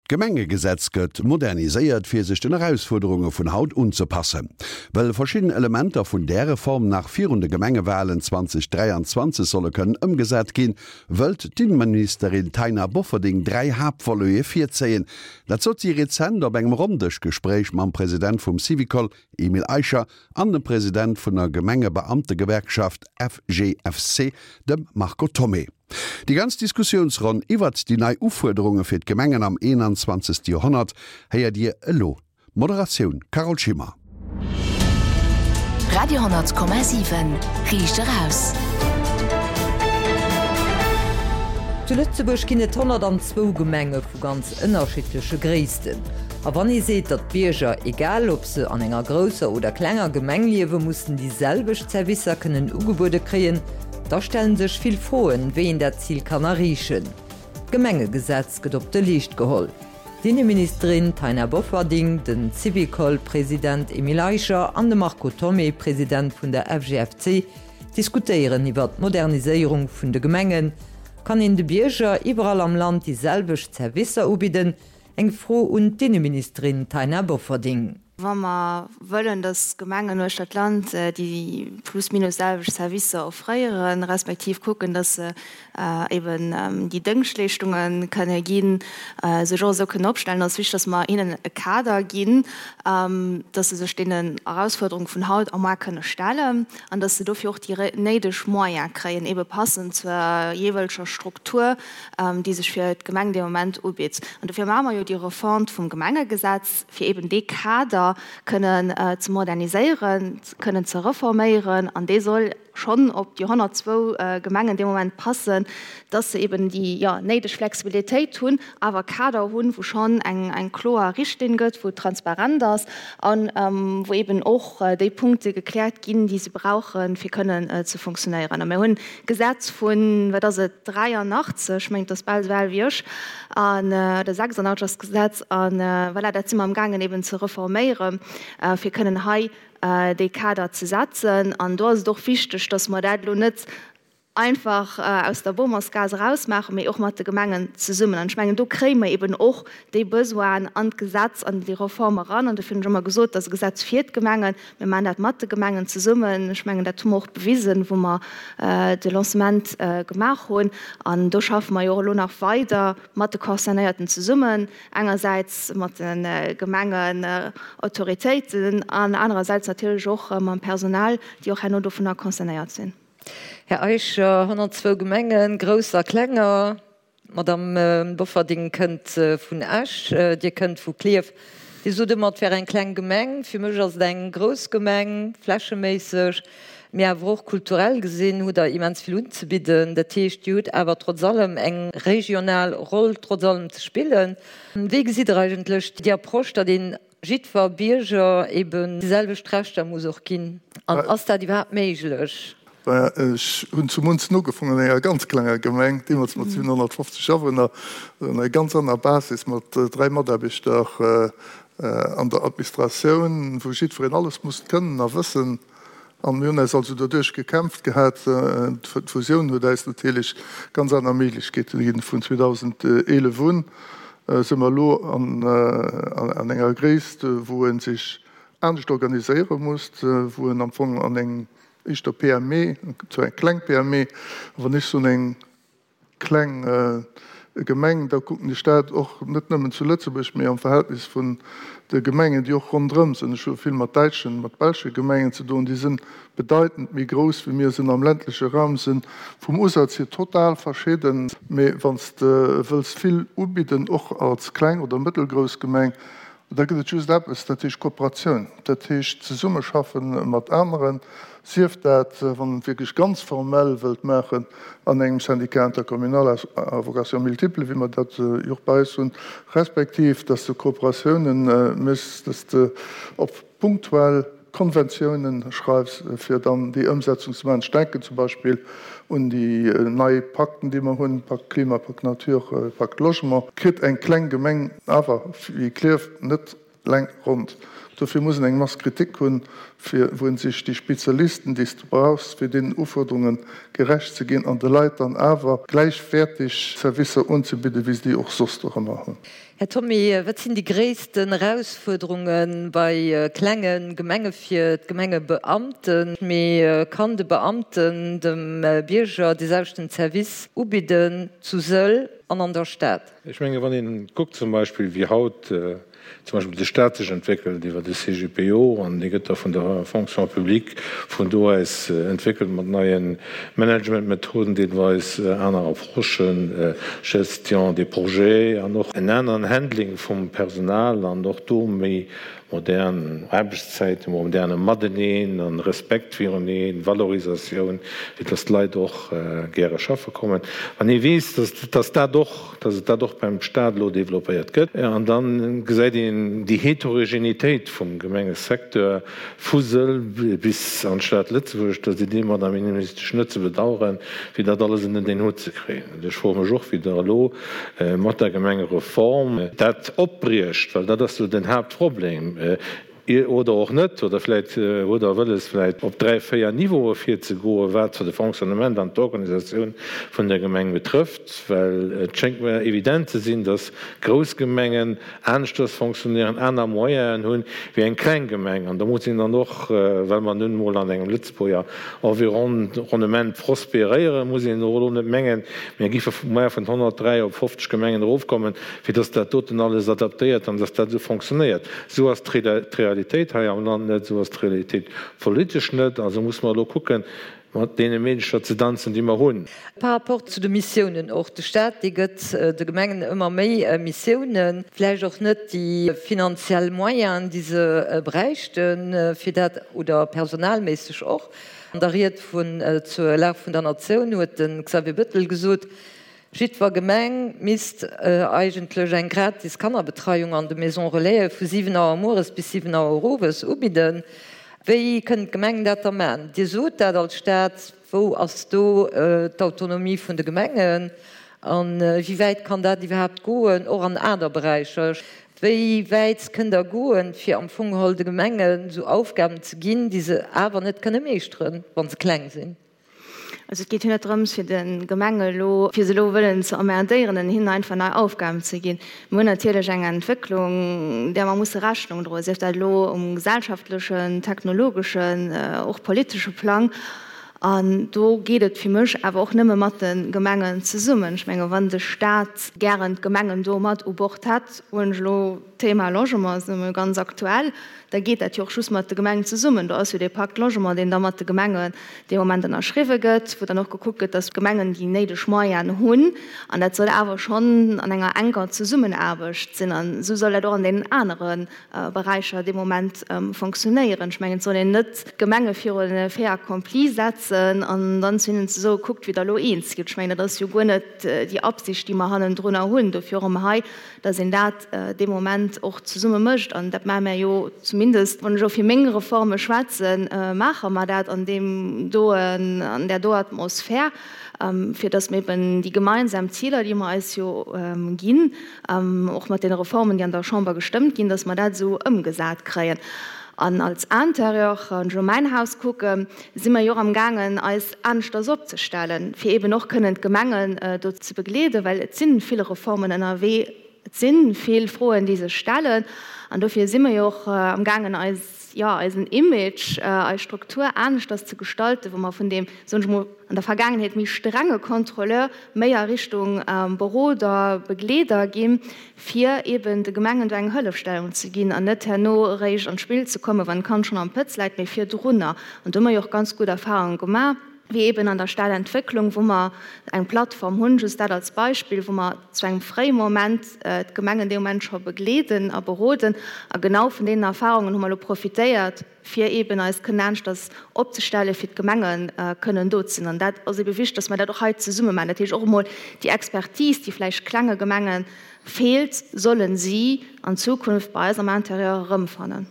D'Gemengegesetz gëtt moderniséiert, fir sech den Erausfuerderunge vun haut unzepassen. Well verschidden Elementer vun där Reform nach virun de Gemengewalen 2023 solle kënnen ëmgesat ginn, wëllt d'Inneministerin Taina Bofferding 3 Haaptvolete virzéien. Dat sot si rezent op engem Ronndëschgespréich mam President vum Syvicol, Emile Eicher, an dem President vun der Gemengebeamtegewerkschaft FGFC, dem Marco Thomé. Déi ganz Diskussiounsronn iwwert déi nei Ufuerderunge fir d'Gemengen am 21. Joerhonnert héiert Dir elo. Moderatioun, Carole Schimmer. Radio 10,7 Riicht eraus. Zu Lëtzebuerg ginn et 102 Gemenge vu ganz ënnerschiddleche Gréissten. A wann ee seet, datt d'Bierger, egal ob se an enger grousser oder klenger Gemeng liewen, mussen déi selwecht Servicer kënnen ugebuede kréien, Da stellen sech vill Froen, wéi een dat Zil kann erreechen. D'Gemengegesetz gëtt op de Leescht geholl. D'Inneministerin Taina Bofferding, den Syvicol-President Emile Eicher an de Marco Thomé, President vun der FGFC, diskutéieren iwwer d'Moderniséierung vun de Gemengen. Kann een de Bierger iwwerall am Land déi selwecht Servicer ubidden? Eng Fro un d'Inneministerin Taina Bofferding. Wa mer wëllen, dass d'Gemengen uechter d'Land déi plus minus selwecht Servicer offréieren, respektiv kucken, dass se eben déi Dëngschtleeschtunge kënne ginn, sech och esou kënnen opstellen, ass wichteg, dass mer hinnen e Kader ginn, dass se sech deenen Erausfuerderunge vun haut a muar kënne stellen an dass se dofir och déi néideg Moyene kréien, ebe passend zur jeeweileger Struktur, déi sech fir d'Gemeng dee Moment ubitt. An dofir maache mer jo déi Refonte vum Gemengegesetz. fir eben dee Kader kënnen ze moderniséieren, kënnen ze reforméieren, an dee soll schonn op déi 102 Gemengen dee Moment passen, dass se eben déi, jo, néideg Flexibilitéit hunn, awer e Kader hunn, wou schonn eng, eng kloer Richtlinn gëtt, wou et transparent ass a wou eben och déi Punkte gekläert ginn, déi se brauchen, fir kënnen ze funktionéieren. A mir hunn Gesetz vun, wat ass et, 83, ech mengen, et ass bal esou al wéi ech, an, oder 86 ass d'Gesetz, a voilà, dat si mer amgaangen eben ze reforméieren, fir kënnen hei dee Kader ze setzen. An do ass et och wichteg, dass mer dat elo net einfach aus der Bomersgaass erausmaachen, mee och mat de Gemengen zesummen. An ech mengen, do kréie mer eben och déi Besoinen an d'Gesetz, an déi Reform eran. An dofir hunn ech ëmmer gesot, dat ass e Gesetz fir d'Gemengen. Mir maachen dat mat de Gemengen zesummen. Ech mengen, dat hu mer och bewisen, wou mer de Lancement gemaach hunn. An do schaffe mer jo och elo nach weider mat de Concernéierten zesummen, engersäits mat de Gemengenautoritéiten an anerersäits natierlech och mam Personal, déi och herno dovunner concernéiert sinn. Här Eicher, 102 Gemengen, grouss a klenger. D'Madame Bofferding kënnt vun Esch, Dir kënnt vu Klierf. Dir sot ëmmer, et wär eng kleng Gemeng. Fir mech ass et eng grouss Gemeng, flächeméisseg, mee awer och kulturell gesinn hutt Der immens vill unzebidden. Dat heescht, Dir hutt awer trotz allem eng regional Roll trotz allem ze spillen. Wéi gesitt Der eigentlech déi Approche, datt een jiddwer Bierger eben déi selwecht Rechter muss och ginn? An ass dat iwwerhaapt méiglech? Maja, ech hunn zu Munzen ugefongen, an enger ganz klenger Gemeng, deemools mat 750 Awunner, an enger ganz aner Basis, mat 3 Mataarbechter an der Administratioun, wou jiddwereen alles musst kënnen a wëssen. An mir hunn eis also doduerch gekämpft gehat. D'Fusioun huet eis natierlech ganz aner Méiglechkeete ginn. Vun 2011 un si mer elo an enger Gréisst, wou e sech anescht organiséiere muss, wou en am Fong an eng éischter PME, zwar eng kleng PME, awer ech soen eng kleng Gemeng, da kucken ech dat och net nëmmen zu Lëtzebuerg, mee am Verhältnis vun de Gemengen, déi och ronderëm sinn. Ech hu vill mat däitschen, mat belsche Gemengen ze doen, déi si bedeitend méi grouss wéi mir sinn am ländleche Raum, si vum Usaz hier total verschidden. Mee wann s de wëlls vill ubidden, och als kleng oder mëttelgrouss Gemeng, Da gëtt et just eppes, dat heescht Kooperatioun, dat heescht Zesummeschaffe mat aneren, sief dat, wann een et wierklech ganz formell wëllt maachen, an engem Syndicat intercommunal à vocation multiple, wéi mer dat jo och bei eis hunn, respektiv dass de Kooperatiounen méchs, dass de op punktuell Konventiounen schreifs, fir dann déi Ëmsetzung ze maachen. Ech denken zum Beispill un déi nei Pakten, déi mer hunn, Pakt Klima, Pakt Nature, Pakt Logement. Kritt eng kleng Gemeng awer wéi Klierf net. Leng ronnt. Dofir muss en eng Masse critique hunn, fir wou en sech déi Spezialisten, déi s de brauchs, fir deenen Ufuerderunge gerecht ze ginn an de Leit dann awer gläichwäertig Servicer unzebidden, wéi se déi och soss dorëmmer hunn. Här Thomé, wat sinn déi gréissten Erausfuerderunge bei klenge Gemenge fir d'Gemengebeamten? Mee kann de Beamten dem Bierger dee selwechten Service ubidden zu Sëll an an der Stad? Ech menge wann een kuckt zum Beispill wéi haut zum Beispill de Stat sech entwéckelt iwwer de CGPO, an dee gëtt da vun der Fonction publique vun do aus entwéckelt mat neie Managementmethoden, deelweis aner Approchen, Gestion des projets an och en aneren Handling vum Personal an och do méi modern Aarbechtszäiten, moderne Mateneen an Respekt viruneen, Valorisatioun, fir dass d'Leit och gäre schaffe kommen. Wann ee weess, dass dat och, dass et dat och beim Stat elo développéiert gëtt, an da gesäit een déi Heterogenitéit vum Gemengesecteur vu Sëll bis an d'Stad Lëtzebuerg, da sidd Dir, Madame Innenministesch, net ze bedauern, fir dat alles ënnert een Hutt ze kréien. Ech froe mech och, wéi Der elo mat der Gemengereform dat opbriecht, well dat ass jo den Haaptproblem, oder och net, oder vläicht hutt Der wëlles, vläicht op dräi, véier Niveaue virzegoen, wat de Fonctionnement an d'Organisatioun vun der Gemeng betrëfft, well et schéngt mer evident ze sinn, dass grouss Gemengen aneschters fonctionnéieren, aner Moyenen hunn, wéi eng kleng Gemeng. An da muss een dann och, well mer nun emol an engem Lëtzebuerger Environnement prospéréieren, muss een och elo net mengen, mir géife muer vun 103 op 50 Gemengen erofkommen, fir dass dat doten alles adaptéiert an dass dat esou fonctionnéiert. Esou ass d'Realitéit hei am Land net, esou ass d'Realitéit politesch net. Also muss mer elo kucken, Mat deene Meedercher ze danzen, déi mer hunn. Par rapport zu de Missiounen och, de Staat, dee gëtt de Gemengen ëmmer méi Missiounen, vläicht och net déi finanziell Moyenen, déi se bräichten, fir dat, oder personalméisseg och. An der Ried vun zur Lag vun der Natioun huet de Xavier Bettel gesot, Jiddwer Gemeng misst eigentlech eng gratis Kannerbetreiung an de Maisons Relaisen vu 7 Auer mueres bis 7 Auer owes ubidden. Wéi kënnen d'Gemengen dat da maachen? Dir sot dat als Staat. Wou ass do d'Autonomie vun de Gemengen? A wéi wäit kann dat iwwerhaapt goen, och an aner Beräicher? Wéi wäit kënnt Der goen, fir am Fong geholl de Gemengen esou Aufgaben ze ginn, déi se awer net kënne meeschteren, wa se kleng sinn? Also et geet jo net drëms, fir de Gemenge elo, fir se elo wëllen ze emmerdéieren an hinnen einfach nei Aufgaben ze ginn. Mir hunn natierlech eng Entwécklung, där mer musse Rechnung droen, sief dat elo um gesellschaftlechen, technologeschen, och politesche Plang. An do geet et fir mech awer och nëmme mat de Gemengen zesummen. Ech menge wann de Stat gären d'Gemengen do mat u Bord hätt, hunn ech elo d'Thema Logement ass nëmme ganz aktuell, da geet dat jo och just mat de Gemengen zesummen. Do ass jo dee Pacte Logement, deen da mat de Gemengen dee Moment ënnerschriwwe gëtt, wou dann och gekuckt gëtt, datt d'Gemengen déi néideg Moyenen hunn. An dat soll awer schonn an enger enker Zesummenaarbecht sinn. An esou soll dat och an deenen anere Beräicher dee Moment fonctionnéieren. Ech mengen, et soll een net d'Gemenge virun e Fait accompli setzen an dann zu hinnen ze soen, kuckt, wéi Der elo eens gitt. Ech mengen, dat ass jo guer net déi Absicht, déi mer hannendrunner hunn. Dofir och erëm hei dass een dat dee Moment och zesumme mécht. An dat maache mär jo zumindest, wann ech elo fir meng Reforme schwätzen, maache mer dat an deem doen, an där do Atmosphär, fir dass mir eben déi gemeinsam Ziler, déi mer eis jo ginn, och mat deene Reformen, déi an der Chamber gestëmmt ginn, dass mer dat esou ëmgesat kréien. An als Interieur, wann ech elo mäin Haus kucken, si mer jo och amgaangen, eis aneschters opzestellen, fir eeben och kënnen d'Gemengen do ze begleeden, well et si vill Reformen ënnerwee, et si vill Froen, déi sech stellen. An dofir si mer jo och amgaangen, eis, jo, eisen Image, eis Struktur aneschters ze gestalten, wou mer vun deem, soen ech emol, an der Vergaangenheet méi strenge Contrôleur méi a Richtung Beroder, Begleeder ginn, fir eben de Gemengen do eng Hëllefstellung ze ginn an net herno eréischt an d'Spill ze kommen, wann d'Kand schonn am Pëtz läit, mee virdrunner. An do hu mer jo och ganz gutt Erfahrunge gemaach, wéi eben an der Stadentwécklung, wou mer eng Plattform hunn, just dat als Beispill, wou mer zu engem fréie Moment d'Gemengen dee Moment scho begleeden a beroden. A genau vun deenen Erfahrungen hu mer elo profitéiert, fir eeben eis kënnen aneschters opzestellen, fir d'Gemenge kënnen do ze sinn. An dat ass eebe wichteg, dass mer dat och hei zesumme maachen. Dat heescht och emol déi Expertise, déi vläicht klenge Gemenge feelt, solle si an Zukunft bei eis am Intérieur erëmfannen.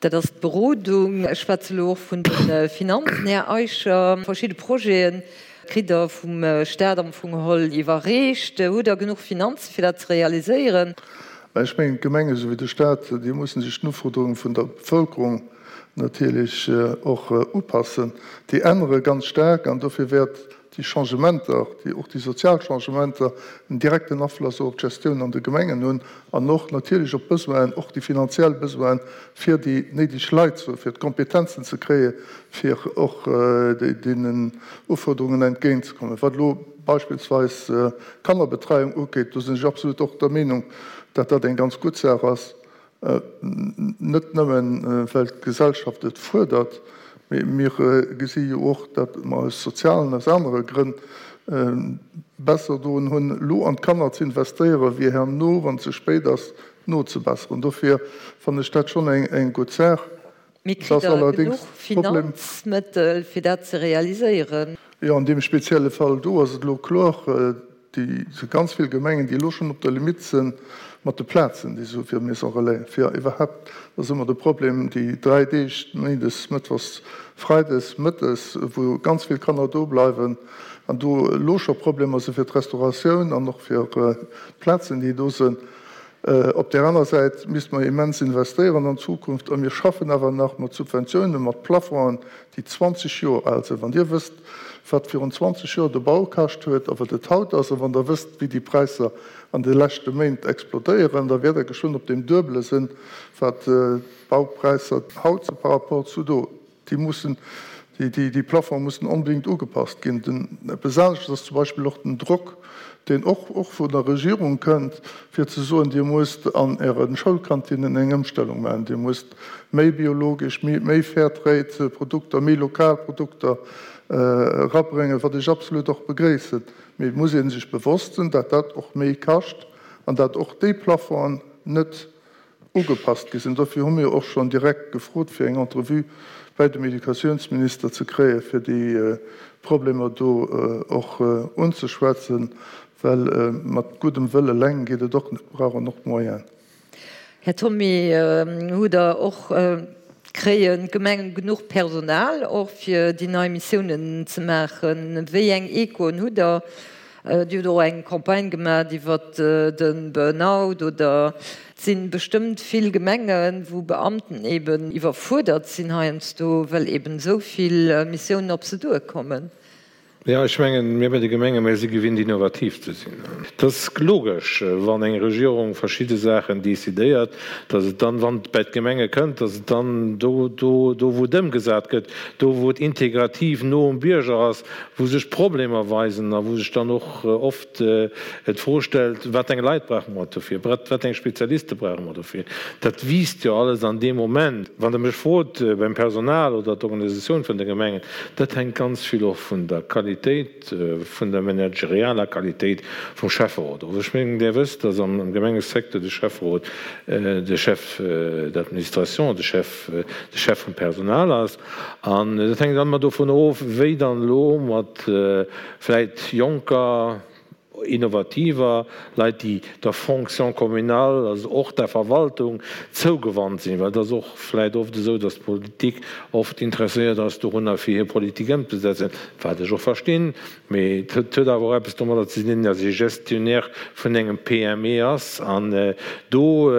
Dat ass d'Berodung. Ech schwätze elo och vun de Finanzen, Här Eicher. Verschidde Projete kritt Der vum Stat am Fong geholl iwwerreecht. Hutt Der genuch Finanze fir dat ze realiséieren? Mä ech mengen, d'Gemenge souwéi de Stat, déi mussen sech den Ufuerderunge vun der Bevölkerung natierlech och upassen. Déi ännere ganz staark an dofir wäert déi Changementer, déi och déi sozial Changementer, en direkten Afloss och op d'Gestioun an de Gemengen hunn an och natierlech op d'Besoinen, och déi finanziell Besoinen, fir déi néideg Leit ze hunn, fir d'Kompetenzen ze kréie fir och deenen Ufuerderungen entgéintzekommen. Wat elo beispillsweis d'Kannerbetreiung ugeet, do sinn ech absolut och der Meenung, datt dat eng ganz gutt Saach ass, Net nëmmen, well d'Gesellschaft et fuerdert, mee mir gesi jo och, datt mer aus sozialen, aus anere Grënn besser doen hunn, elo an d'Kanner ze investéieren, wéi herno, wann et ze spéit ass, nozebesseren. Dofir fannen ech dat schonn eng gutt Saach. Mee kritt Der genuch Finanzmëttel, fir dat ze realiséieren? Jo, an deem spezielle Fall do ass et elo kloer, déi si ganz vill Gemengen, déi elo schonn op der Limitt si mat de Plazen, déi se hu fir Maison Relais, fir iwwerhaapt, dat ass ëmmer de Problem, déi 3 Deeg, méindes, mëttwochs, freides mëttes, wou ganz vill Kanner do bleiwen an do elo scho Problemer si fir d'Restauratioun an och fir d'Plazen, déi do sinn. Op där aner Säit misste mer immens investéieren an d'Zukunft. A mir schaffen awer nach mat Subventiounen, mat Plafongen, déi 20 Joer al sinn. Wann Dir wësst, wat virun 20 Joer de Bau kascht huet a wat et haut ass, a wann Der wësst, wéi déi Präisser an de leschte Méint explodéieren, da wäert Der geschwënn op deem Duebele sinn, wat d'Baupräisser haut si par rapport zu do. Déi mussen, déi Plafonge mussen onbedéngt ugepasst ginn. Den, eppes anesches ass zum Beispill och den Drock, deen och, och vun der Regierung kënnt, fir ze soen, Dir musst an Äre Schoulkantinnen eng Ëmstellung maachen, Dir musst méi biologesch, méi, méi fair trade Produkter, méi lokal Produkter erabréngen, wat ech absolut och begréissen. Mee et muss ee sech bewosst sinn, dat dat och méi kascht an dat och déi Plafongen net ugepasst gi sinn. Dofir hu mir och schonn direkt gefrot, fir eng Entrevue bäi dem Educatiounsminister ze kréien, fir déi Problemer do och unzeschwätzen, well mat guddem Wëll eleng geet et och net, mir brauchen och d'Moyenen. Här Thomé, hutt Der och, kréien d'Gemengen genuch Personal och fir déi nei Missiounen ze maachen? Wéi eng Echoen hutt Der? Dir hutt och eng Campagne gemaat iwwert de Burnout oder et si bestëmmt vill Gemengen, wou Beamten eben iwwerfuerdert sinn heiansdo, well eben esou vill Missiounen op se duerkommen. Jo, ech mengen, mir bei de Gemenge, mir si gewinnt innovativ ze sinn. Et ass logesch, wann eng Regierung verschidde Saachen decidéiert, datt et dann, wann et bei d'Gemenge kënnt, datt et dann do, do, do wou et ëmgesat gëtt, do wou et integrativ no um Bierger ass, wou sech Problemer weisen a wou sech dann och oft d'Fro stellt, Wat eng Leit brauche mer dofir? Wat eng Spezialiste brauche mer dofir? Dat wiisst jo alles an deem Moment. Wann Der mech frot beim Personal oder d'Organisatioun vun de Gemengen, dat hänkt ganz vill och vun der Qualitéit, vun der managerialer Qualitéit vum Schäfferot of. Ech mengen, Dir wësst, dass am Gemengesecteur de Schäfferot de Chef d'administration, de Chef, de Chef vum Personal ass. An dat hänkt dann ëmmer dovun of, wéi dann elo mat vläit jonker, innovativer Leit, déi der Fonction communale, also och der Verwaltung zougewannt sinn, well et ass och vläit oft esou, datt d'Politik oft interesséiert ass dorunner, fir hir Politik ëmzesetzen, wat ech och verstinn, mee et huet awer och eppes domadder ze dinn, datt ee Gestionnaire vun engem PME ass an do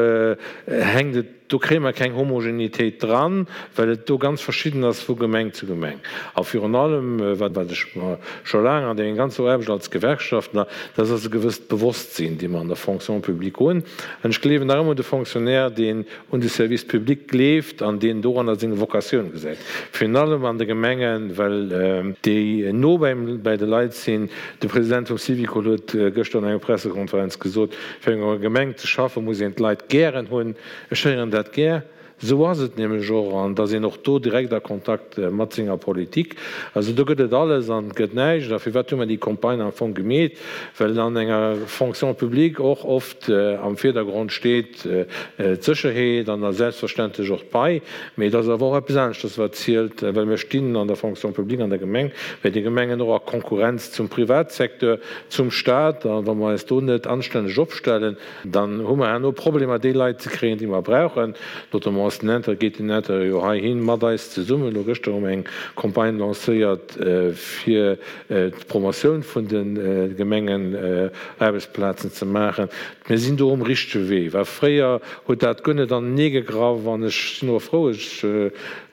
hänkt et, Do kréie mer keng Homogenitéit dran, well et do ganz verschidden ass vu Gemeng zu Gemeng. A virun allem, wat ech mer scho laang an denger ganzer Aarbecht als Gewerkschaftler, dat ass e gewësst Bewosstsinn, dee mer an der Fonction publique hunn. An ech gleewen nach ëmmer un de Fonctionnaire, deen un de Service public gleeft an deen doranner seng Vocatioun gesäit, virun allem an de Gemengen, well déi no bäi de Leit sinn. De President vum Syvicol huet gëschter an enger Pressekonferenz gesot, Fir an enger Gemeng ze schaffen, muss een d'Leit gären hunn. Ech héieren dat gär. Esou ass et nämlech och. An da sinn och do direkt a Kontakt mat senger Politik. Also do gëtt et alles an et gëtt näischt. A firwat hu mer déi Campagne am Fong gemeet? Well an enger Fonction publique och oft am Virdergrond steet d'Sécherheet an da selbstverständlech och d'Pai. Mee et ass awer och eppes aneschters, wat zielt, well mir stinn an der Fonction publique an der Gemeng, bei de Gemengen och a Konkurrenz zum Privatsecteur. Zum Staat, a wa mer eis do net anstänneg opstellen, dann hu mer herno Problemer, déi Leit ze kréien, déi mer brauchen, notamment. Notamment ass den Intérieur, geet den Intérieur jo heihin mat eis zesummen. Elo gëschter hu mer eng Campagne lancéiert fir d'Promotioun vun de Gemengenaarbechtsplazen ze maachen. Mir sinn do um richtege Wee. Well fréier huet dat guer net anenee gegraff. An ech sinn och frou, ech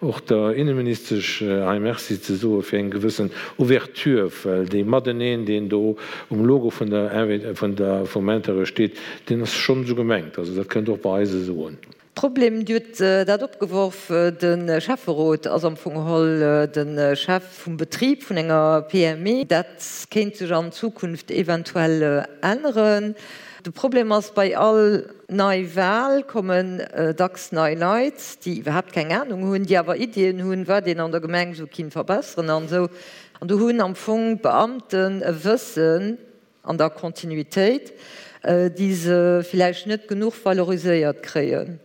och der Inneministesch hei Merci ze soe fir eng gewëssen Ouverture, well dee Mateneen, deen do um Logo vun der, vun der, vum Intérieur steet, deen ass schonn esou gemengt. Also dat kënnt och bei eis esou un. Problem, Dir hutt dat opgeworf, de Schäfferot ass am Fong geholl de Chef vum Betrib vun enger PME. Dat kéint sech an Zukunft eventuell änneren. De Problem ass, bei all nei Wal kommen dacks nei Leit, déi iwwerhaapt keng Anung hunn, déi awer Iddien hunn, wat een an der Gemeng esou kinnt verbesseren an esou. An do hunn am Fong d'Beamten e Wëssen, an der Kontinuitéit, déi se villäicht net genuch valoriséiert kréien.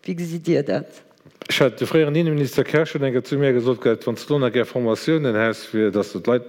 Wéi gesitt Dir dat? Ech hat, de fréieren Inneminister Kersch huet eng Kéier zu mir gesot gehat, wann s de do nach gär Formatiounen häss, fir datt s de d'Leit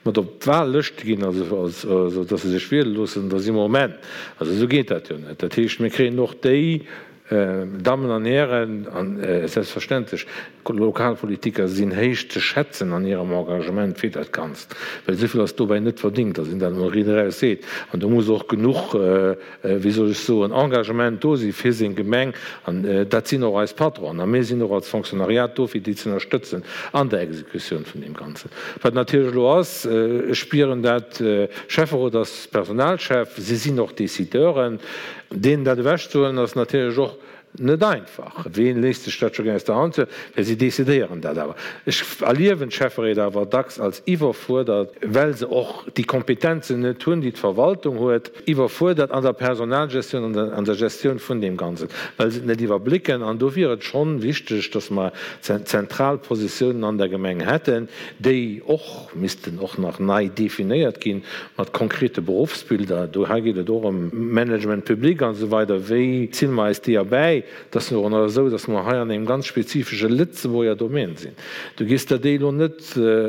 mat op d'Wahllëschte ginn, also also datt se sech wiele loossen, da si mer um Enn. Also esou geet dat jo net. Dat heescht, mir kréien och déi Dammen an Hären, a selbstverständlech, Lokalpolitiker sinn héich ze schätzen an hirem Engagement fir dat Ganzt, well esou vill ass dobäi net verdingt, datt een dat emol riit eraus seet. An do muss och genuch, wéi soll ech soen, Engagement do si fir seng Gemeng. An dat sinn och eis Patronen. A mir sinn och als Fonctionnariat do, fir déi ze ënnerstëtzen an der Exekutioun vun deem Ganzen. Wat natierlech elo ass, ech spieren dat, Schäfferot ass Personalchef, si sinn och Décideuren. Deenen dat ewechzehuelen ass natierlech och net einfach. Ween léisst sech dat scho gär aus der Hand huelen? Well si decidéieren dat awer. Ech erliewen d'Schäfferéit awer dacks als iwwerfuerdert, well se och déi Kompetenzen net hunn, déi d'Verwaltung huet, iwwerfuerdert an der Personalgestioun, an der Gestioun vun deem Ganzen, well se et net iwwerblécken. An do wier et schonn wichteg, datt mer zentral Positiounen an der Gemeng hätten, déi och missten och nach nei definéiert ginn, mat konkrete Beruffsbilder. Do hei geet et och ëm Management public an esou weider. Wéi zille mer eis déi erbäi? Et ass jo och nach esou, datt mer hei an engem ganz spezifesche Lëtzebuerger Domaine sinn. Du gees der déi elo net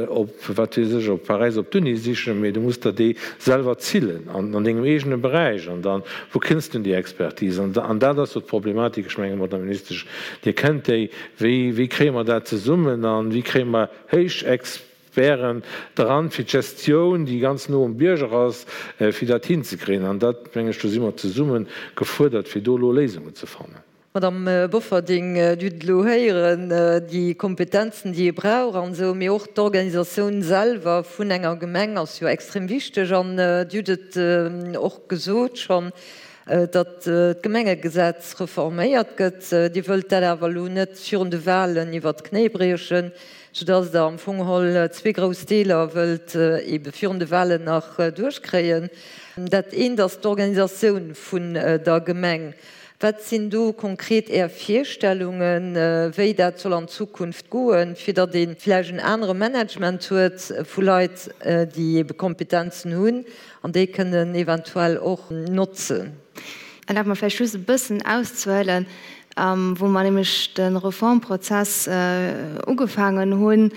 op, wat weess ech, op Paräis op d'Uni sichen, mee du muss der déi selwer zillen an dengem eegene Beräich. An dann, wou kënns du un déi Expertise? An dat ass jo d'Problematik. Ech menge, Madame Ministesch, Dir kennt déi. Wéi, wéi kréie mer dat zesummen a wéi kréie mer héich Experten dran, fir d'Gestioun, déi ganz no um Bierger ass, fir dat hinzekréien. An dat, meng ech, do si mer zesumme gefuerdert, fir do elo Léisungen ze fannen. Madame Bofferding, Dir hutt et elo héieren, déi Kompetenzen, déi ee brauch an esou, mee och d'Organisatioun selwer vun enger Gemeng ass jo extrem wichteg. An Dir hutt et och gesot schonn, datt d'Gemengegesetz reforméiert gëtt. Dir wëllt dat awer elo net virun de Wahlen iwwert d'Knéi briechen, soudatt Der am Fong geholl zwee grouss Deeler wëllt ebe virun de Wahlen nach duerchkréien. Dat eent ass d'Organisatioun vun der Gemeng. Wat sinn do konkret Är Virstellungen, wéi dat soll an Zukunft goen, fir datt ee vläicht en anere Management huet vu Leit, déi ebe Kompetenzen hunn an déi kënnen eventuell och notzen? Erlaabt mer vläicht just e bëssen auszehuelen, Wou mer nämlech de Reformprozess ugefaangen hunn,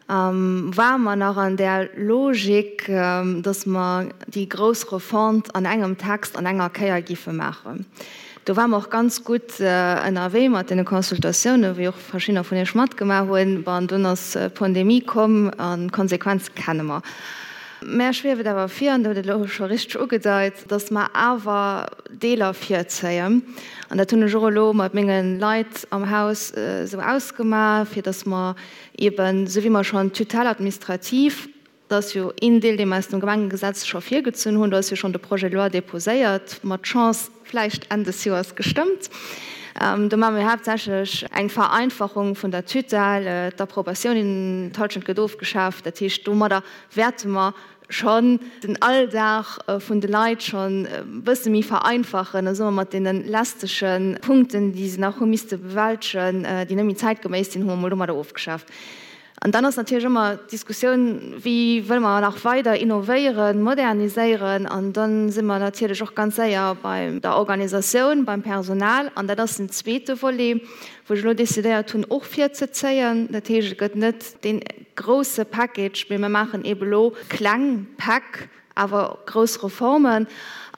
ware mer nach an där Logik, dass mer déi grouss Refonte an engem Text an enger Kéier géife maachen. Do ware mer och ganz gutt ënnerwee mat deene Consultatiounen, wéi och verschiddener vun Iech matgemaach hunn. Bon, dunn ass d'Pandemie komm an d'Konsequenze kenne mer. Mär schwieft et awer vir, an Der hutt et elo scho richteg ugedeit, dass mer awer Deeler virzéien. An dat hunn ech och elo mat menge Leit am Haus esou ausgemaach, fir dass mer eeben, esou wéi mer schonn d'Tutelle administrative, dat ass jo een Deel, dee mer aus dem Gemengegesetz scho virgezunn hunn, do ass jo schonn de Projet de loi déposéiert, mat Chance vläicht Enn des Joers gestëmmt. Do maache mir haaptsächlech eng Vereinfachung vun der Tutelle, d'Approbatioun, d'Halschent gëtt ofgeschaaft. Dat heescht, domadder wäerte mer schonn den Alldag vun de Leit schonn e bësse méi vereinfachen, da soe mer mat deene lästege Punkten, déi se nach hu misste bewältegen, déi net méi zäitgeméiss sinn, hu mer emol domadder ofgeschaaft. An dann ass natierlech ëmmer d'Diskussioun, Wéi wëlle mer nach weider innovéieren, moderniséieren? An da si mer natierlech och ganz séier bei der Organisatioun, beim Personal. An dat ass den zweete Volet, wou ech elo decidéiert hunn, och virzezéien. Dat heescht, et gëtt net dee grousse Package, mee mir maachen eebe elo kleng Päck, awer grouss Reformen.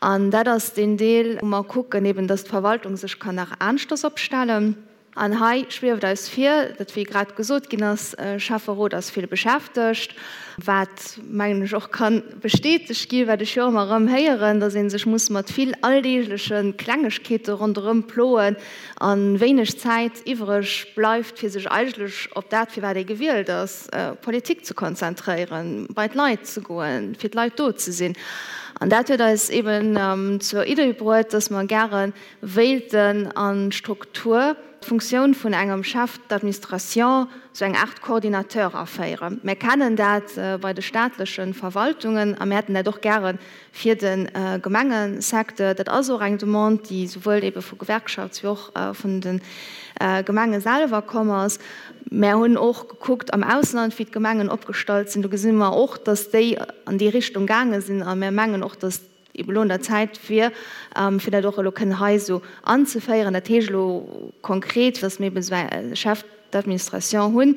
An dat ass deen Deel, wou mer kucken eeben, dass d'Verwaltung sech kann nach aneschters opstellen. An hei schwieft eis vir, datt, wéi grad gesot ginn ass, Schäfferot ass vill beschäftegt, wat, mengen ech, och ka bestätegt ginn, wat ech jo ëmmer erëm héieren, datt ee sech muss mat vill alldeegleche Klengegkeete ronderëm ploen a wéineg Zäit iwwreg bleift, fir sech eigentlech op dat, fir wat ee gewielt ass, Politik ze konzentréieren, bei d'Leit ze goen, fir d'Leit do ze sinn. An dat huet eis eeben zur Idee bruet, datt mer gäre wéilten an d'Struktur, d'Funktioun vun engem Chef d'administration, sou eng Aart Coordinateur aféieren. Mär kennen dat bei de staatleche Verwaltungen a mär hätten dat och gäre fir de Gemengesecteur. Dat ass och eng Demande, déi souwuel ebe vu Gewerkschafts wéi och vun de Gemenge selwer komm ass. Mär hunn och gekuckt am Ausland, wéi d'Gemengen opgestallt sinn. Do gesi mer och, dass déi an déi Richtung gaange sinn a mär mengen och, dass ebe elo un der Zäit wier, fir dat och elo kënnen hei esou anzeféieren. Dat heescht elo konkret, dass mir eben esou e Chef d'administration hunn,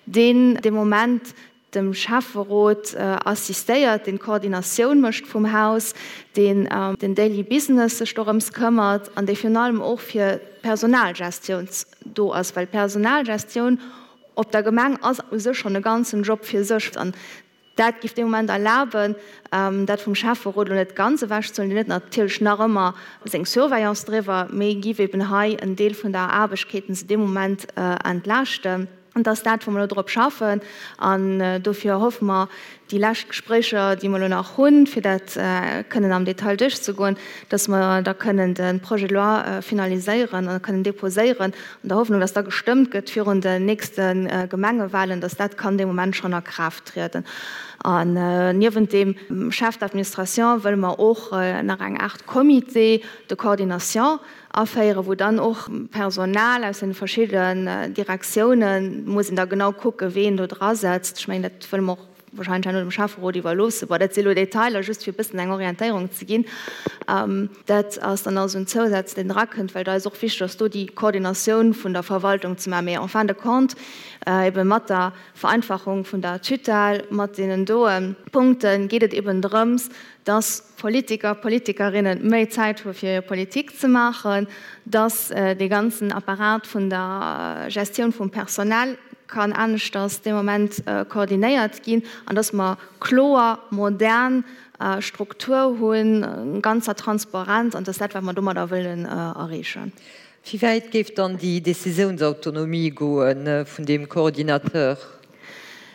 deen dee Moment dem Schäfferot assistéiert, deen d'Koordinatioun mécht vum Haus, deen den Daily Business sech dorëms këmmert an dee virun allem och fir d'Personalgestioun do ass, well d'Personalgestioun op der Gemeng ass u sech schonn e ganzen Job fir sech. An Dat géif dee Moment erlaben, dat vum Schäfferot elo net ganz ewechzehuelen, deen huet natierlech nach ëmmer seng Surveillance driwwer, mee giff eben hei en Deel vun der Aarbechkeeten se dee Moment entlaaschten. An dat ass dat, wou mer elo drop schaffen. An dofir hoffe mer, déi lescht Gespréicher, déi mer elo nach hunn, fir dat kënnen am Detail duerchzegoen, dass mer da kënnen de Projet de loi finaliséieren a kënnen déposéieren, an der Hoffnung, dass da gestëmmt gëtt virun den nächste Gemengewahlen, dass dat kann dee Moment schonn a Kraaft trieden. An niewent deem Chef d'administration wëlle mer och nach eng Aart Comité de coordination aféieren, wou dann och Personal aus den verschiddenen Direktiounen, muss een da genau kucken, ween do drasetzt, ech mengen, dat wëlle mer och wahrscheinlech herno dem Schäfferot iwwerloossen. Bon, dat si elo Detailer, just fir e bëssen eng Orientéierung ze ginn. Dat ass dann also en Zousaz, deen drakënnt, well et eis och wichteg ass, do déi Koordinatioun vun der Verwaltung ze maachen. Mee en fin de compte, ebe mat der Vereinfachung vun der Tutelle, mat deenen doe Punkte geet et eben drëms, dass Politiker, Politikerinnen méi Zäit hu fir hir Politik ze maachen, dass dee ganzen Apparat vun der Gestioun vum Personnel kann aneschters dee Moment koordinéiert ginn an dass mer kloer, modern Struktur hunn, ganzer Transparenz an dass dat wat mer domadder wëllen erreechen. Wéi wäit géif dann déi Décisiounsautonomie goe vun deem Coordinateur?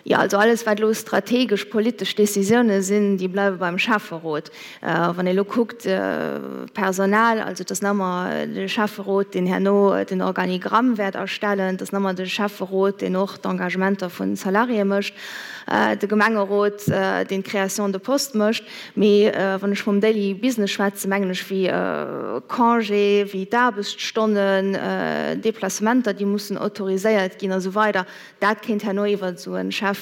Jo, also alles wat elo strategesch politesch Décisioune sinn, déi bleiwe beim Schäfferot. Wann ee elo kuckt, Personal, also et ass nach ëmmer de Schäfferot, deen herno den Organigramm wäert erstellen, et ass nach ëmmer de Schäfferot, deen och d'Engagementer vu Salariéë mécht, de Gemengerot, deen d'Création de postes mécht. Mee wann ech vum Daily Business schwätzen, mengen ech wéi Congé, wéi d'Aarbechtsstonnen, Déplacementer, déi mussen autoriséiert ginn a sou weider. Dat kéint herno iwwer esou e Chef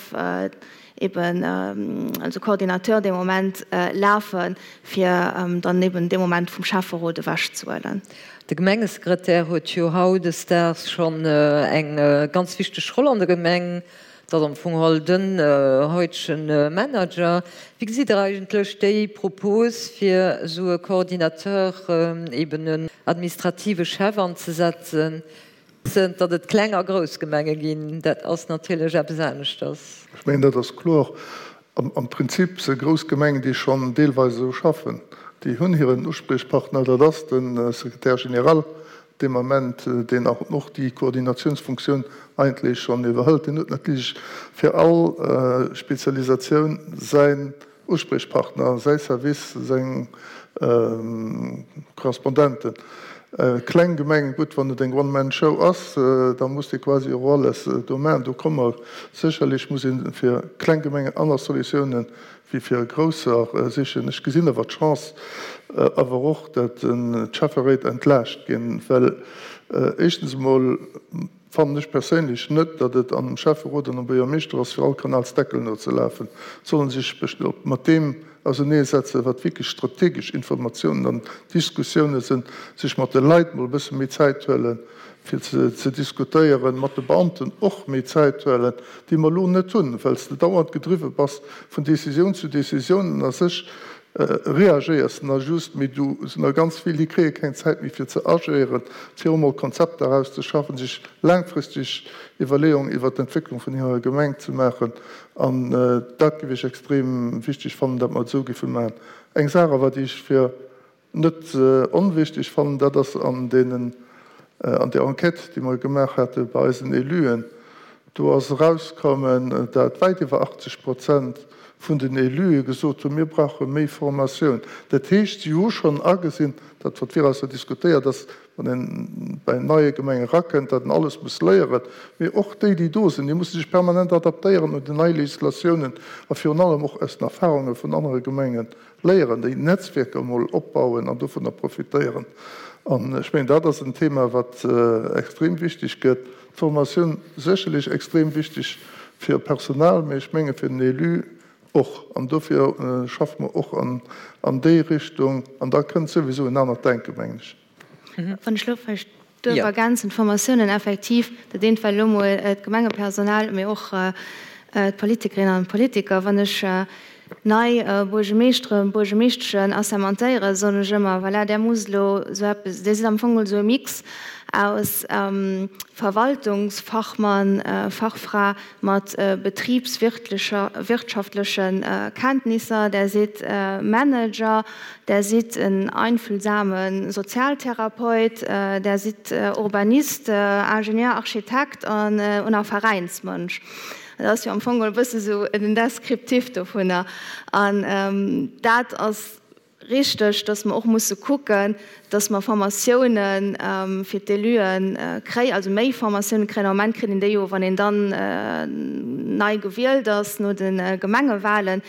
eben, also Coordinateur dee Moment lafen, fir dann eben dee Moment vum Schäfferot ewechzehuelen. De Gemengesekretär huet jo hautdesdaags schonn eng ganz wichteg Roll an der Gemeng. Et ass am Fong geholl den heutegen Manager. Wéi gesitt Der eigentlech déi Propos, fir esou e Coordinateur, eben en administrative Chef anzesetzen? Wëssend, datt et kleng a grouss Gemenge ginn, dat ass natierlech eppes aneschters. Ech mengen, dat ass kloer. Am Prinzip si grouss Gemengen, déi schonn deelweis esou schaffen, déi hunn hiren Uspriechpartner, dat ass de Secrétaire général dee Moment, deen och déi Koordinatiounsfunktioun eigentlech schonn iwwerhëlt. Deen huet natierlech fir all Spezialisatioun säin Uspriechpartner, säi Service, seng Korrespondenten. Kleng Gemengen, gutt, wann et eng One-Man-Show ass, da muss dee quasi och alles do maachen. Do komme mer sécherlech, muss ee fir kleng Gemengen aner Solutiounen wéi fir grousser sichen. Ech gesinn awer d'Chance awer och, datt d'Schäfferéit entlaascht ginn, well éischtens emol, fannen ech perséinlech net, datt et am Schäfferot an am Buergermeeschter ass, fir all Kanalsdeckel nozelafen. Sollen sech mat deem auserneesetzen, wat wierklech strategesch Informatiounen an Diskussiounen sinn, sech mat de Leit mol e bësse méi Zäit huelen, fir ze diskutéieren, mat de Beamten och méi Zäit huelen, déi mer elo net hunn, well s de dauernd gedriwwe bass vun Décisioun zu Décisioun an a sech. Reagéiers na just, mee do sinn der ganz vill, déi kréie keng Zäit méi fir ze agéieren, fir emol Konzepter erauszeschaffen, sech laangfristeg Iwwerleeungen iwwert d'Entwécklung vun hirer Gemeng ze maachen. An dat géif ech extrem wichteg fannen, datt mer et esou géife maachen. Eng Saach awer, déi ech fir net onwichtig fannen, dat ass an deenen, an där Enquête, déi mer gemaach hate bei eisen Éluen, do ass erauskommen, dat wäit iwwer 80 Prozent vun den Élue gesot hunn, mir brauche méi Formatioun. Dat heescht, si hu schonn agesinn, dat wat virausser diskutéiert ass, wann een bei neie Gemenge erakënnt, datt en alles muss léieren, mee och déi, déi do sinn, déi musse sech permanent adaptéieren un déi nei Législatiounen a virun allem och aus den Erfahrunge vun anere Gemengen léieren, déi Netzwierker emol opbauen an dovunner profitéieren. An ech mengen, dat ass en Thema, wat extrem wichteg gëtt. D'Formatioun sécherlech extrem wichteg fir Personal, mee ech menge fir den Élu och. An dofir schaffe mer och an déi Richtung. An da kënnt souwisou en anert Denken, mengen ech. Wann ech elo vläicht duerf ergänzen, d'Formatiounen effektiv, dat eent war elo emol d'Gemengepersonal, mee och d'Politikerinnen an d'Politiker. Wann ech nei Buergemeeschteren, Buergemeeschteschen assermentéieren, soen ech ëmmer, voilà, där musst elo esou eppes, Dir sidd am Fong geholl esou e Mix aus Verwaltungsfachmann, Fachfra mat betriebswirtschaftlechen Kenntnisser, Där sidd Manager, Där sidd en einfühlsame Sozialtherapeut, Där sidd Urbanist, Ingenieur, Architekt an och Veräinsmënsch. Dat ass jo am Fong e bësse sou den Descriptif dovunner. An dat ass richteg, dass mer och musse kucken, dass mer Formatioune fir d'Éluen kréien, also méi Formatioune kréien. Am Moment kritt een déi jo, wann een dann nei gewielt ass no de Gemengewahlen.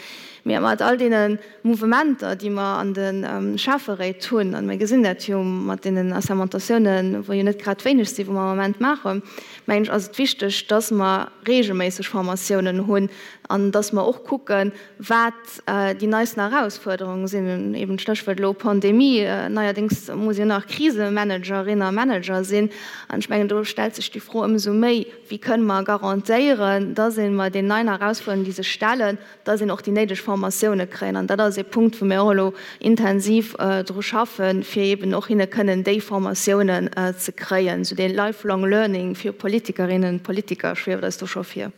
Mee mat all deene Mouvementer, déi mer an de Schäfferéit hunn, a mir gesinn dat jo mat deenen Assermentatiounen, wou jo net grad wéineg sinn, wou mer am Moment maachen, mengen ech, ass et wichteg, dass mer regelméisseg Formatiounen hunn an dass mer och kucken, wat déi neisten Erausfuerderungen sinn. Eben d'Stéchwuert elo Pandemie, neierdéngs muss een nach Krisemanagerin a manager sinn. An ech mengen, do stellt sech déi Fro ëmsou méi, Wéi kënne mer garantéieren, dass ee mat den neien Erausfuerderungen, déi sech stellen, dass een och déi néideg Formatioune kréien. An dat ass ee Punkt, wou mir och elo intensiv dru schaffen, fir eeben och hinne kënnen déi Formatiounen ze kréien. Esou dee lifelong learning fir Politikerinnen, Politiker schwieft eis do scho vir.